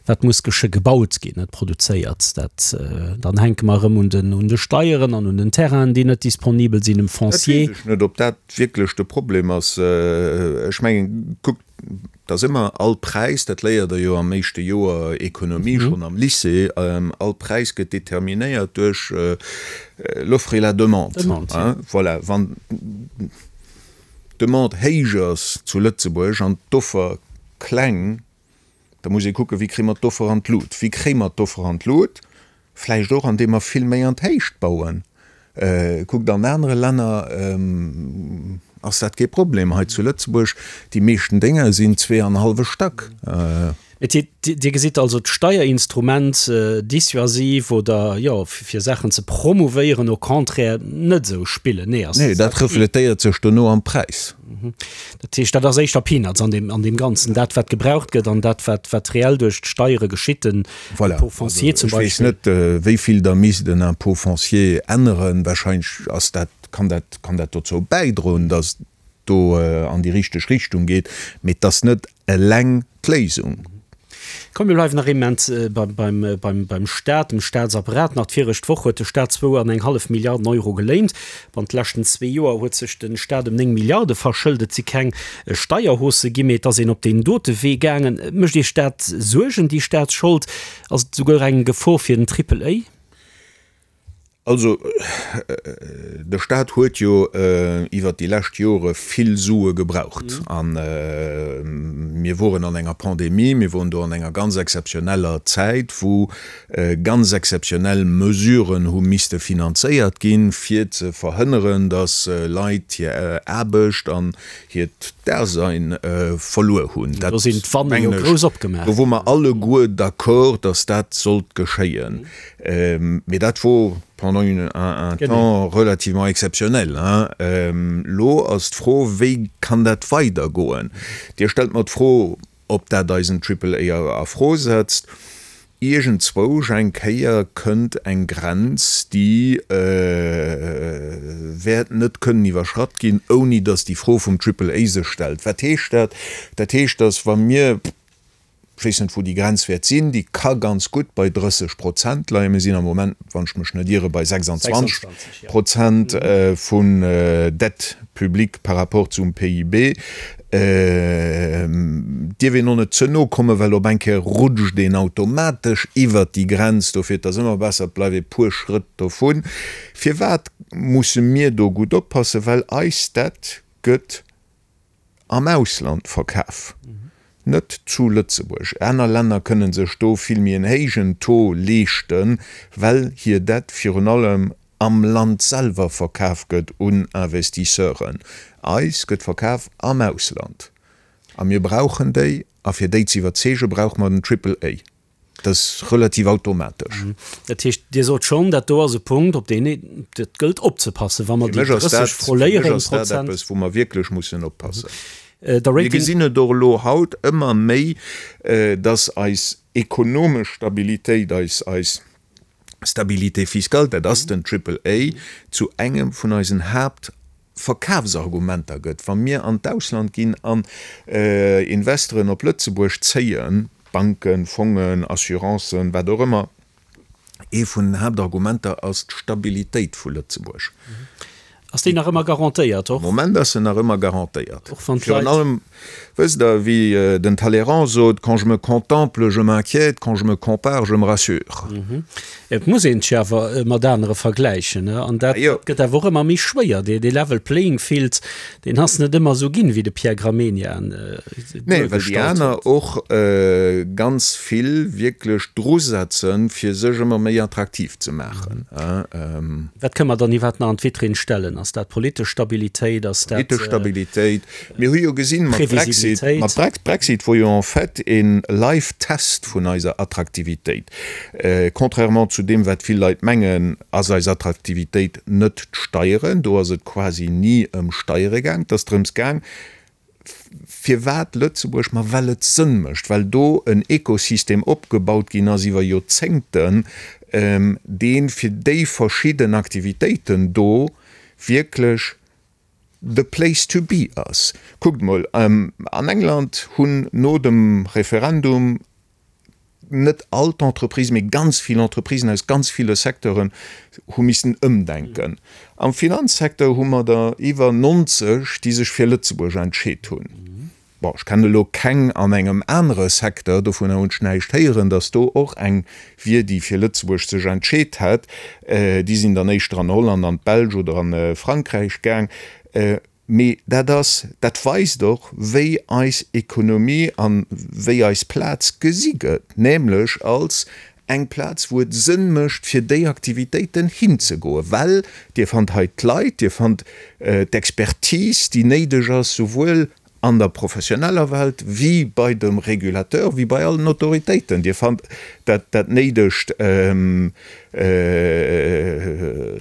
wat muss gesche gebaut ginn, net produzéiert? Dat, dann hänke mer erëm un den, un de Steieren an un den Terrainen, déi net disponibel sinn, um Foncier. Dat weess ech net, ob dat wierklech de Problem ass. Ech mengen, kuckt, Et ass ëmmer all Präis, dat léiert Der jo am éischte Joer Ekonomie schonn am Lycée, all Präis gëtt determinéiert duerch l'offre et la demande. Voilà, wann d'Demande héich ass zu Lëtzebuerg an d'Offer kleng, da muss ee kucken, wéi kréie mer d'Offer an d'Lut? Wéi kréie mer d'Offer an d'Lut? Vläicht och, andeem mer vill méi an d'Héicht bauen. Kuckt, an anere Länner ass dat kee Problem. Hei zu Lëtzebuerg, déi meeschten Dénger sinn zweeanhallwe Stack. Dir gesitt also d'Steierinstrument dissuasiv oder, jo, fir Saachen ze promouvéieren, au contraire net esou spillen. Nee, ass. Nee, dat refletéiert sech dono am Präis. Dat heescht, dat ass éischter Peanuts an deem, an deem Ganzen, dat wat gebraucht gëtt an dat wat, wat reell duerch d'Steiere geschitt, den Voilà. Impôt foncier zum Beispill. Ech weess net, wéi vill Der misst den Impôt foncier änneren. Wahrscheinlech ass dat, kann dat, kann dat dozou bäidroen, datt do an déi richteg Richtung geet, mee et ass net eleng d'Léisung. Komm, mir bleiwen nach ee Moment beim Staat, dem Staatsapparat. Nach d'viregt Woch huet de Staat zwou an eng hallef Milliarden Euro geléint. Bannent de leschten zwee Joer huet sech de Staat ëm 9 Milliarde verschëlt. Et si keng Steierhaussë ginn, mee et ass een op deen dote Wee gaangen. Mécht Iech dat Suergen, déi Staatsschold? Ass et esouguer eng Gefor fir den Triple A? Also, de Staat huet jo iwwert déi lescht Jore vill Sue gebraucht. A mir woren an enger Pandemie, mir woren do an enger ganz exzeptioneller Zäit, wou ganz exzeptionell Mesuren hu misste finanzéiert ginn, fir ze verhënneren, datt Leit hir Aarbecht an hiert Dasein verluer hunn. Do sinn d'Wanne jo grouss opgemaach ginn. Do wore mer alleguer d'accord, datt dat sollt geschéien. Mee dat wor pendant un temps relativement exceptionnel. Elo ass d'Fro, wéi kann dat weidergoen? Dir stellt mer d'Fro, ob dat eisen Triple A a Fro setzt. Iergendzwousch eng Kéier kënnt eng Grenz, déi wäert net kënnen iwwerschratt ginn, ouni datt déi Fro vum Triple A sech stellt. Wat heescht dat? Dat heescht, datt wa mir, Ech weess net, wou déi Grenz wäert sinn. Déi ka ganz gutt bei 30 Prozent leien. Mir sinn am Moment, wann ech mech net iere, bei 26 Prozent vun Dette publique par rapport zum PIB. Dierf een och net ze no kommen, well op eng Kéier rutscht een automatesch iwwert déi Grenz. Dofir, et ass ëmmer besser, et bleift ee puer Schrëtt dovun. Firwat musse mir do gutt oppassen? Well eis Dette gëtt am Ausland verkaf, net zu Lëtzebuerg. Aner Länner kënne sech do vill méi en héijen Taux leeschten, well hir Dette virun allem am Land selwer verkaf gëtt un Investisseuren. Eis gëtt verkaf am Ausland a mir brauchen déi a fir déi ze iwwerzeege brauche mer den Triple A. Dat ass relativ automatesch. Dat heescht, Dir sot schonn, dat do ass e Punkt, op deen et gëllt opzepassen, wa mer déi 30 froléieren. Fir mech ass dat eppes, wou mer wierklech mussen oppassen. Mir gesinn et och elo haut ëmmer méi, dass eis ekonomesch Stabilitéit, eis, eis Stabilité fiscale, dat ass den Triple A, zu engem vun eisen Haapt Verkafsargumenter gëtt, wa mir an d'Ausland ginn an Investoren op Lëtzebuerg zéien, Banken, Fongen, Assurancen, wat och ëmmer, ee vun den Haaptargumenter ass d'Stabilitéit vu Lëtzebuerg. Ass déi nach ëmmer garantéiert? Am Moment ass se nach ëmmer garantéiert. Virun allem, wësst Der, wéi den Talleyrand sot, Quand je me contemple, je m'inquiète, quand je me compare, je me rassure. Et muss een sech awer mat anere vergläichen, an dat gëtt awer och ëmmer méi schwéier. Dee level playing field, deen ass net ëmmer esou ginn, wéi de Pierre Gramegna en Nee, well déi aner och ganz vill wierklech drusetzen, fir sech ëmmer méi attraktiv ze maachen. Wat kënne mer dann iwwerhaapt nach an d'Vitrinn stellen? Ass dat politesch Stabilitéit? Ass dat. Politesch Stabilitéit. Mir hu jo gesinn mat Brexit, mat Brexit wor jo en fait e live Test vun eiser Attraktivitéit. Contrairement zu deem wat vill Leit mengen, ass eis Attraktivitéit net d'Steieren. Do ass et quasi ni ëm Steiere gaang. Et ass drëms gaang, firwat Lëtzebuerg? Ma well et Sënn mécht, well do en Ekosystem opgebaut ginn ass iwwer Joerzéngten, dee fir déi verschidden Aktivitéiten do wierklech the place to be ass. Kuckt mol, an England hunn no dem Referendum net all d'Entreprisen, mee ganz vill Entreprisen aus ganz ville Secteuren hu missen ëmdenken. Am Finanzsecteur hu mer der iwwer 90, déi sech fir Lëtzebuerg entscheet hunn. Bon, ech kennen elo keng an engem anere Secteur, dovunner hunn ech näischt héieren, datt do och eng wier, déi fir Lëtzebuerg sech entscheet hätt. Déi sinn dann éischter an Holland, an d'Belsch oder a Frankräich gaang. Mee dat ass, dat weist och, wéi eis Ekonomie a wéi eis Plaz gesi gëtt, nämlech als eng Plaz, wou et Sënn mécht, fir déi Aktivitéiten hinzegoen, well Dir fannt hei d'Leit, Dir fannt d'Expertise, déi néideg ass, souwuel an der professioneller Welt wéi bei dem Régulateur, wéi bei allen Autoritéiten. Dir fannt dat dat néidegt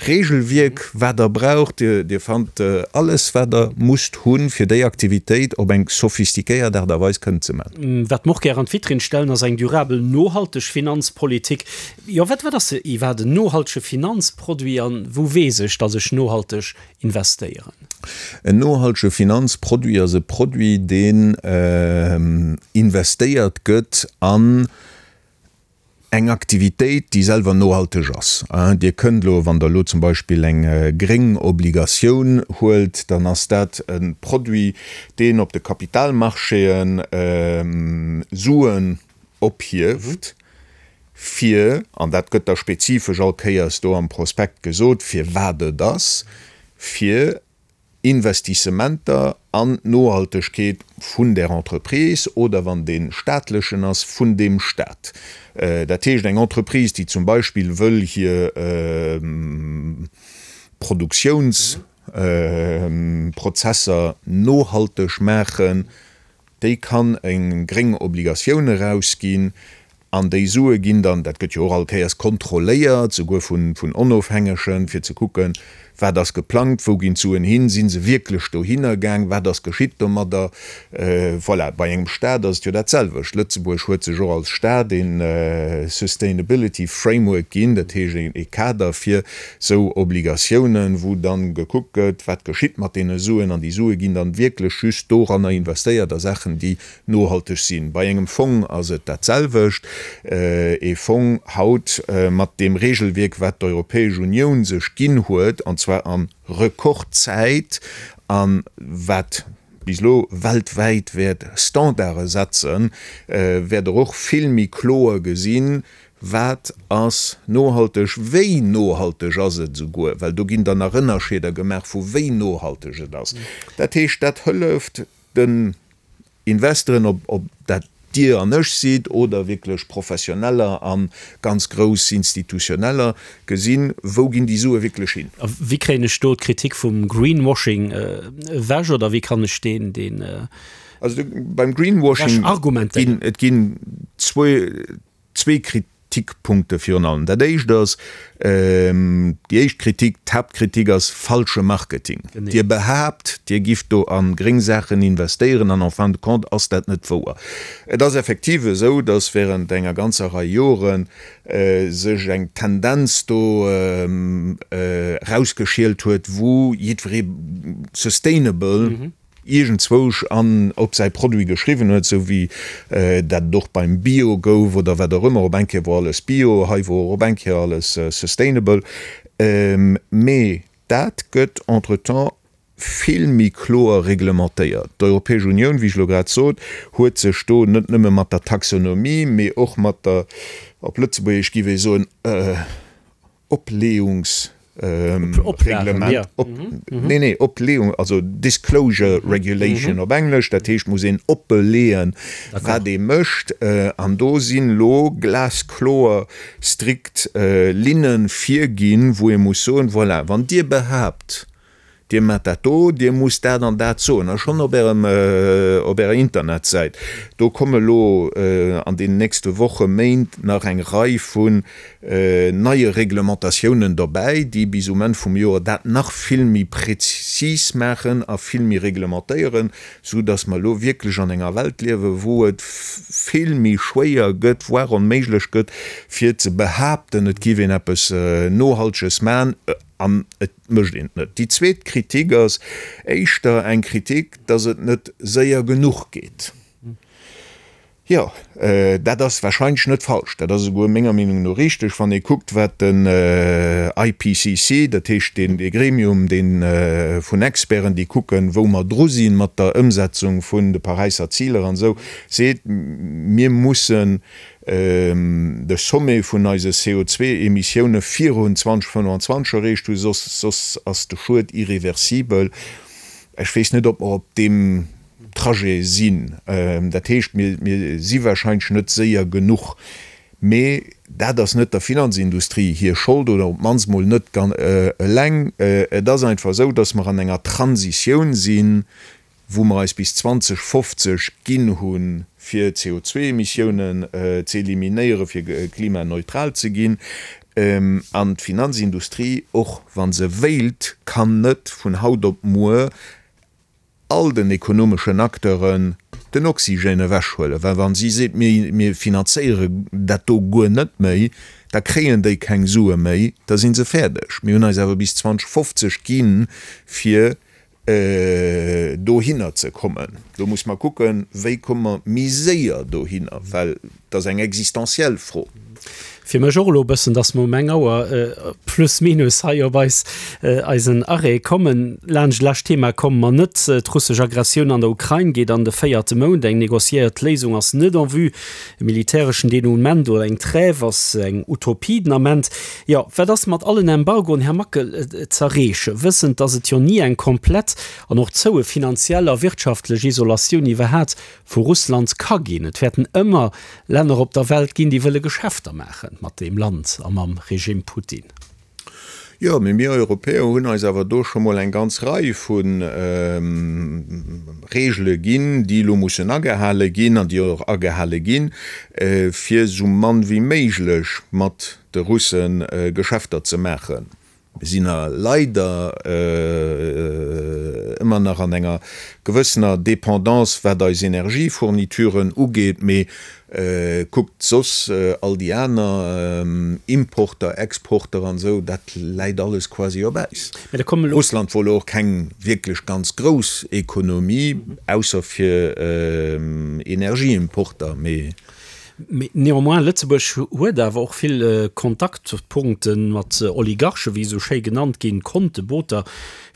Regelwierk, wat Der braucht. Dir fannt alles, wat Der musst hunn, fir déi Aktivitéit op eng sophistiquéiert Aart a Weis kënnen ze maachen. Wat mer och gär an d'Vitrinn stellen, ass eng durabel, nohalteg Finanzpolitik. Jo, wat wat ass iwwerhaapt en nohaltege Finanzproduit an wou weess ech, datt ech nohalteg investéieren? En nohaltege Finanzproduit ass e Produit, deen investéiert gëtt an eng Aktivitéit, déi selwer nohalteg ass. Dir kënnt elo, wann Der elo zum Beispill eng gréng Obligatioun huelt, dann ass dat e Produit, deen op de Kapitalmarchéen Suen ophieft. fir, an dat gëtt da spezifesch all Kéiers do am Prospekt gesot, fir wat et ass, fir Investissementer an d'Nohaltegkeet vun där Entreprise oder, wann dee staatlechen ass, vun deem Stat. Dat heescht, eng Entreprise, déi zum Beispill wëll hir Produktiounsprozesser nohalteg maachen, déi kann eng gréng Obligatioun erausginn an déi Sue ginn dann, dat gëtt jo och all Kéiers kontrolléiert, souguer vun Onofhängegen, fir ze kucken, wat ass geplangt, wou ginn d'Suen hin, si se wierklech dohinner gaang, wat ass geschitt domadder. Voilà, bei engem Stat ass et jo dat selwecht. Lëtzebuerg huet sech och als Stat ee Sustainability Framework ginn, dat heescht ee Kader fir sou Obligatiounen, wou dann gekuckt gëtt, wat geschitt mat deene Suen, an déi Sue ginn dann wierklech just doranner investéiert a Saachen, déi nohalteg sinn. Bei engem Fong ass et dat selwecht. Ee Fong haut mat deem Regelwierk, wat d'Europäesch Unioun sech ginn huet, an zwar a Rekordzäit, a wat bis elo weltwäit wäert Standarde setzen, wäert Der och vill méi kloer gesinn, Wat ass nohalteg? Wéi nohalteg ass et esouguer? Well do ginn dann nach Ënnerscheeder gemaach vu wéi nohalteg et ass. Dat heescht, dat hëlleft den Investoren, ob dat Dir an ech sidd oder wierklech Professioneller a ganz grouss Institutioneller, gesinn, wou ginn déi Sue wierklech hin. A wéi kréien ech do d'Kritik vum Greenwashing ewech oder wéi kann ech deen, deen. Also beim Greenwashing ginn et ginn zwou. Zwee Kritikpunkte virun allem. Dat éischt ass, déi éischt Kritik, d'Haaptkritik ass falsche Marketing. Dir behaapt, Dir gifft do a gréng Saachen investéieren an en fin de compte ass dat net wouer. Et ass effektiv esou, datt während enger ganzer Rei Jore sech eng Tendenz do erausgeschielt huet, wou jiddweree sustainable, iergendzwousch an op säi Produit geschriwwen huet, sou wéi dat et och beim Bio gouf oder wat och ëmmer, op eng Kéier wor alles Bio, hei wor och op eng Kéier alles sustainable. Mee dat gëtt entretemps vill méi kloer reglementéiert. D'Europäesch Unioun, wéi ech elo grad sot, huet sech do net nëmme mat der Taxonomie, mee och mat der, op Lëtzebuergesch giff ee soen, Opleeungsreglement, nee, nee, Opleeung, also Disclosure Regulation op Englesch, dat heescht, muss een oppeleeën, wat ee mécht. An do sinn elo glaskloer strikt Linne virginn, wou ee muss soen, voilà, wann Dir behaapt, Dir maacht dat do, Dir musst dat an dat soen, a schonn op Ärem, op Ärer Internetsäit. Do komme lo an deenen nächste Woche, Méint nach eng Rei vun neie Reglementatiounen dobäi, déi bis um Enn vum Joer dat nach vill méi prezis maachen a vill méi reglementéieren, sou dass mer elo wierklech an enger Welt liewen, wou et vill méi schwéier gëtt, voire onméiglech gëtt, fir ze behaapten, et géif een eppes Nohalteges maachen an et mécht een et net. Déi zweet Kritik ass éischter eng Kritik, dass et net séier genuch geet. Jo, dat ass wahrscheinlech net falsch, dat ass esouguer menger Meenung no richteg, wann ee kuckt, wat den IPCC, dat heescht deen dee Gremium, dee vun Experten, déi kucken, wou mer dru si mat der Ëmsetzung vun de Paräisser Ziler an esou, seet, Mir mussen de Sommet vun eise CO2-Emissioune virun 2025 erreecht hunn, soss soss ass de Schued irreversibel. Ech weess net, ob mer op deem Trajet sinn. Dat heescht, mir mir si warscheinlech net séier genuch. Mee dat ass net der Finanzindustrie hir Schold oder op d'mannst mol net eleng. Et ass einfach esou, datt mer an enger Transitioun sinn, wou mer eis bis 2050 ginn hunn, fir CO2-Emissiounen ze eliminéieren, fir klimaneutral ze ginn. An d'Finanzindustrie, och wa se wéilt, kann net vun haut op muer all den ekonomeschen Acteuren den Oxygène ewechhuelen. Well wa si seet, mir finanzéiere dat do guer net méi, da kréien déi keng Sue méi, da si se fäerdeg. Mir hunn eis awer bis 2050 ginn, fir dohinner ze kommen. Do muss mer kucken, wéi komme mer méi séier dohinner, well et ass eng existenziell Fro. Fir mech och elo e bëssen, dass mer um eng Auer plus minus hei op eis, eisen Arrêt kommen. Laanscht lescht Thema komme mer net. D'russesch Aggressioun an der Ukrain geet an de véierte Mount. Eng negociéiert Léisung ass net en vue. E militäreschen Denouement oder eng Trêve ass eng Utopie den Ament. Jo, wat ass mat allen Embargoen, Här Mackel, z'erreechen, wëssend, dass et jo ni eng komplett an och zoue finanziell a wirtschaftlech Isolatioun iwwerhat vu Russland ka ginn? Et wäerten ëmmer Länner op der Welt ginn, déi wëlle Geschäfter maache mat deem Land a mam Regime Putin. Jo, mee mir Europäer hunn eis awer do scho mol eng ganz Rei vu Regele ginn, déi elo mussen agehale ginn an déi och agehale ginn, fir esou mann wéi méiglech mat de Russe Geschäfter ze maachen. Mir sinn a leider ëmmer nach an enger gewëssener Dépendance, wat eis Energiefournituren ugeet, mee kuckt soss all déi aner Importer, Exporter an esou, dat läit alles quasi op Äis. Russland wor elo och keng wierklech ganz grouss Ekonomie, ausser fir Energieimporter, mee. Mee néanmoins, Lëtzebuerg huet awer och vill Kontaktpunkte mat Oligarchen, wéi se esou schéi genannt ginn, Konte, Booter,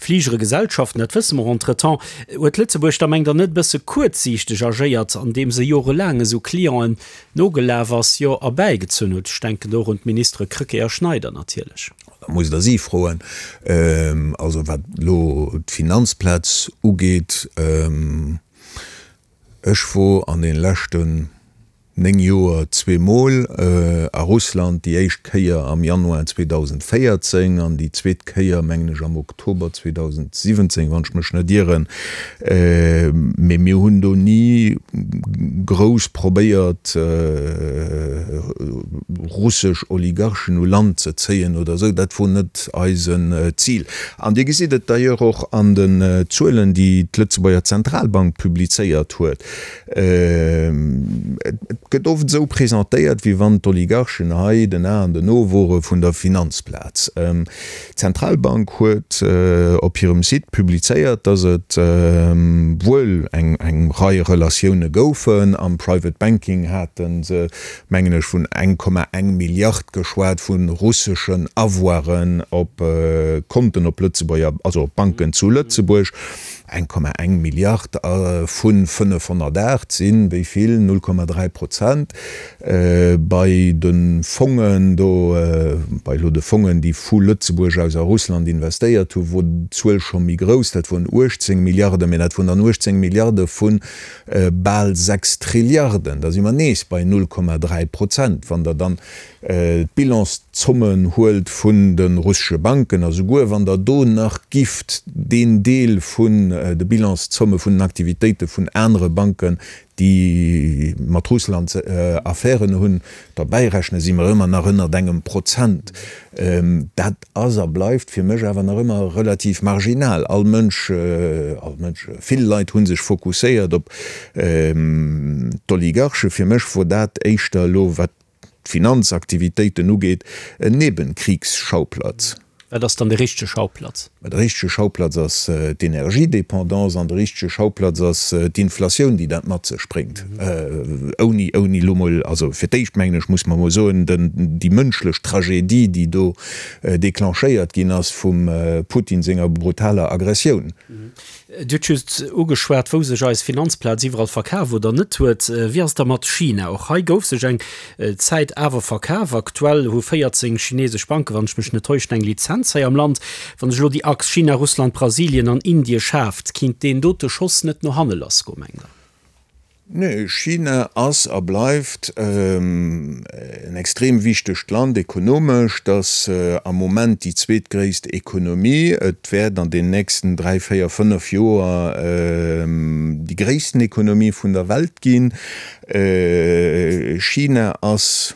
Fligere, Gesellschaften, dat wësse mer. Entretemps huet Lëtzebuerg da, mengt Der, net e bësse kuerzsiichteg agéiert, andeem se jorelaang esou Clienten nogelaf ass, jo erbäigezunn huet? Ech denken do och un d'Ministere Krecké a Schneider natierlech. Da musst Der si froen. Also wat elo d'Finanzplaz ugeet, Ech wor an den leschten 9 Joer zweemol a Russland, déi éischt Kéier am Januar 2014 an déi zweet Kéier mengen ech am Oktober 2017, wann ech mech net ieren. Mee mir hunn do ni grouss probéiert russesch Oligarchen u Land ze zéien oder esou, dat wor net eisen Zil. An Dir gesitt et d'ailleurs och an den Zuelen, déi d'Lëtzebuerger Zentralbank publizéiert huet. Et gëtt oft esou presentéiert, wéi wann d'Oligarchen hei den A an den O wore vun der Finanzplaz. D'Zentralbank huet op hirem Site publizéiert, datt et wuel eng Rei Relatioune goufen. Am Private Banking hate se mengen ech, vun 1,1 Milliard geschwat vu russeschen Avoiren op Konten op Lëtzebuerger, also op Banken zu Lëtzebuerg. 1,1 Milliard vu 508 sinn wéi vill? 0,3 Prozent. Bei de Fongen do, bei elo de Fongen, déi vu Lëtzebuerg aus a Russland investéiert hunn, wor d'Zuel scho méi grouss, dat woren 18 Milliarden, mä dat woren dann 18 Milliarde vun Bal 6 Trilliarden, da si mer nees bei 0,3 Prozent. Wann Der dann d'Bilanszommen huelt vun de russesche Banken, a souguer wann Der do nach gifft deen Deel vun de Bilanszomme vun den Aktivitéite vun anere Banken, déi mat Russland Affären hunn, derbäirechnen, si mer ëmmer nach ënnert engem Prozent. Dat ass a bleift fir mech awer nach ëmmer relativ marginal. All Mënsch, all Mënsch, vill Leit hu sech fokusséiert op d'Oligarchen. Fir mech wor dat éischter elo, wat d'Finanzaktivitéiten ugeet, en Nebenkriegsschauplatz. Wat ass dann de richtege Schauplatz? Mä de richtege Schauplatz ass d'Energiedépendance an de richtege Schauplatz ass d'Inflatioun, déi dat mat sech bréngt. Ouni, ouni elo mol, also fir d'éischt mengen ech, muss mer emol soen, den, déi mënschlech Tragedie, déi do déclenchéiert ginn ass vum Putin senger brutaler Aggressioun. Dir hutt just ugeschwat, wou sech eis Finanzplaz iwwerall verkaf oder net huet. Wéi ass et da mat China? Och hei gouf sech eng Zäit awer verkaf. Aktuell hu 14 chinesesch Banken, wann ech mech net täuschen, eng Lizenz hei am Land. Wann sech elo déi Achs China, Russland, Brasilien an Indie schaaft, kinnt deen dote Schoss net no hanne lassgoen, mengt Der? Nee, China ass a bleift en extrem wichtegt Land ekonomesch. Et ass am Moment déi zweetgréisst Ekonomie. Et wäert an den nächsten dräi, véier, fënnef Joer déi gréissten Ekonomie vun der Welt ginn. China ass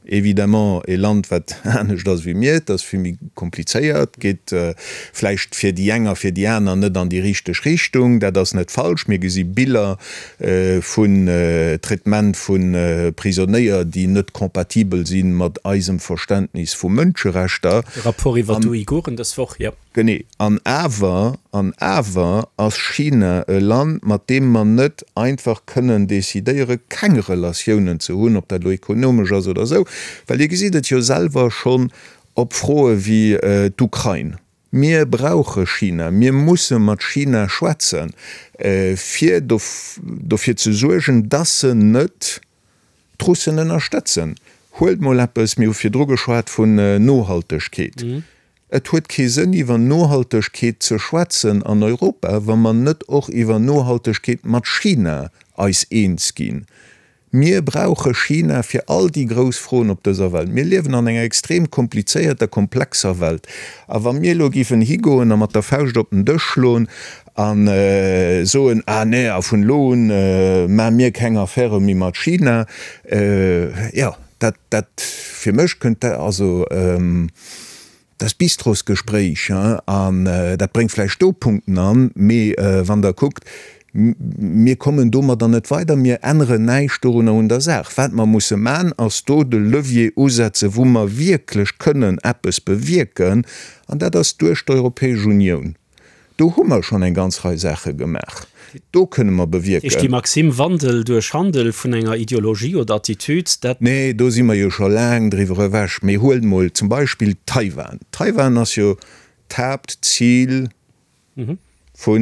évidemment e Land, wat anescht ass wéi mir. Et ass vill méi. Komplizéiert, geet vläicht fir déi eng a fir déi aner net an déi richteg Richtung. Dat ass net falsch. Mir gesi Biller vun Traitement vu Prisonéier, déi net compatibel si mat eisem Verständnis vu Mënscherechter. De Rapport iwwer d'Uiguren dës Woch, jo. Genee. An awer, an awer ass China e Land, mat deem mer net einfach kënnen decidéiere keng Relatiounen ze hunn, ob dat elo ekonomesch ass oder esou, well Dir gesitt et jo selwer schonn Op Froe wéi d'Ukrain. Mir brauche China, mir musse mat China schwätzen, fir dofir ze suergen, dass se net d'Russen ënnerstëtzen. Huelt mol eppes, mir hu virdru geschwat vun Nohaltegkeet. Et huet kee Sënn iwwer Nohaltegkeet ze schwätzen an Europa, wa mer net och iwwer Nohaltegkeet mat China eis eens ginn. Mir brauche China fir all déi grouss Froen op dëser Welt. Mir liewen an enger extrem komplizéierter, komplexer Welt. A wa mir elo géifen higoen a mat der Fauscht op den Dësch schloen a soen, Ah nee, a vun elo un maache mir keng Affäre méi mat China, jo, dat, dat, fir mech kënnt dat, also, Dat ass Bistrosgespréich, an dat bréngt vläicht do Punkten an, mee wann Der kuckt, mir kommen domadder net weider, mir änneren näischt dorunner un der Saach. Wat mer musse man, ass do de Levier usetzen, wou mer wierklech kënnen eppes bewierken, an dat ass duerch d'Europäesch Unioun. Do hu mer schonn eng ganz Rei Saache gemaach. Do kënne mer bewierken. Heescht déi Maxime Wandel duerch Handel vun enger Ideologie oder Attitude, dat. Nee, do si mer jo scho laang driwwer ewech. Mee huelt mol zum Beispill Taiwan. Taiwan ass jo d'Haaptzil vu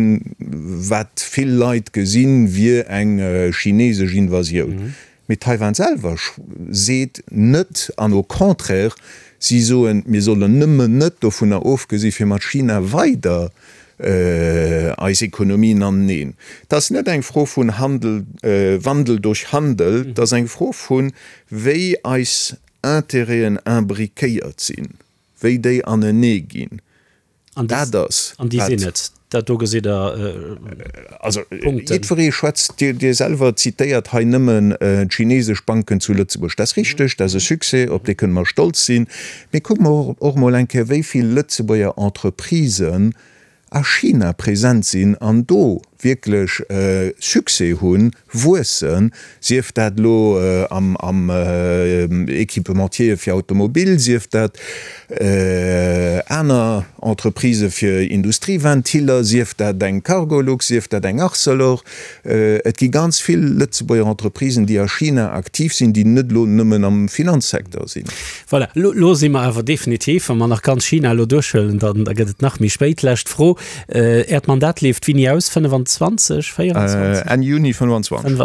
wat vill Leit gesinn, wier eng chinesesch Invasioun. Mee Taiwan selwer seet net, an au contraire, si soen, mir sollen nëmmen net dovunner ofgesi fir mat China weider eis Ekonomien aneneen. Et ass net eng Fro vun Handel, Wandel durch Handel, et ass eng Fro vun, wéi eis Intérêten imbriquéiert sinn, wéi déi anenee ginn. An Dat ass An déi sinn et. Dat do gesitt Der Also Punkten. jiddweree schwätzt, Dir, Dir selwer zitéiert hei nëmmen d'chinesesch Banken zu Lëtzebuerg. Dat ass richteg, dat ass e Succès, op dee kënne mer stolz sinn. Mee kucke mer och emol eng Kéier, wéi vill Lëtzebuerger Entreprisen a China present sinn an do wierklech Succès hunn, wuessen, sief dat elo am Equipementier fir Automobil, sief dat aner Entreprisë fir Industrieventiller, sief dat eng Cargolux, sief dat eng Arcelor. Et gi ganz vill Lëtzebuerger Entreprisen, déi a China aktiv sinn, déi net elo nëmmen am Finanzsecteur sinn. Voilà, elo si mer awer definitiv, wa mer nach ganz China elo duerchhuelen, da gëtt et nach méi spéit. Lescht Fro, Äert Mandat leeft wéini aus? 25, 24? Enn Juni 25.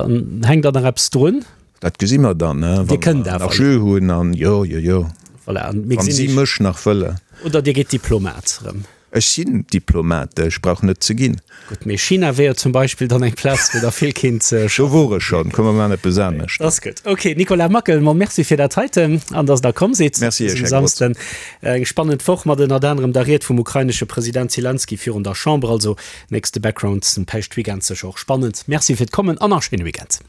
Hänkt da nach eppes drun? Dat gesi mer dann, wa mer nach Jeu hunn an jo, jo, jo, wa si mech nach wëllen. Oder Dir gitt Diplomat erëm? Ech sinn Diplomat, ech brauch net ze ginn. Gutt, mee China wär jo zum Beispill dann eng Plaz, wou der vill kinnt schaffen. Do wor ech schonn, komm mer maachen eppes anescht. Dat ass gutt. Ok, Nicolas Mackel, mol Merci fir dat heiten an dass Der komm sidd Merci Iech, dësem Här Grotz. Samsden. Eng spannend Woch mat ënnert anerem der Ried vum ukrainesche President Zelensky virun der Chamber. Also nächste Background den Päischtweekend sécher och spannend. Merci fir d'Kommen an nach schéine Weekend.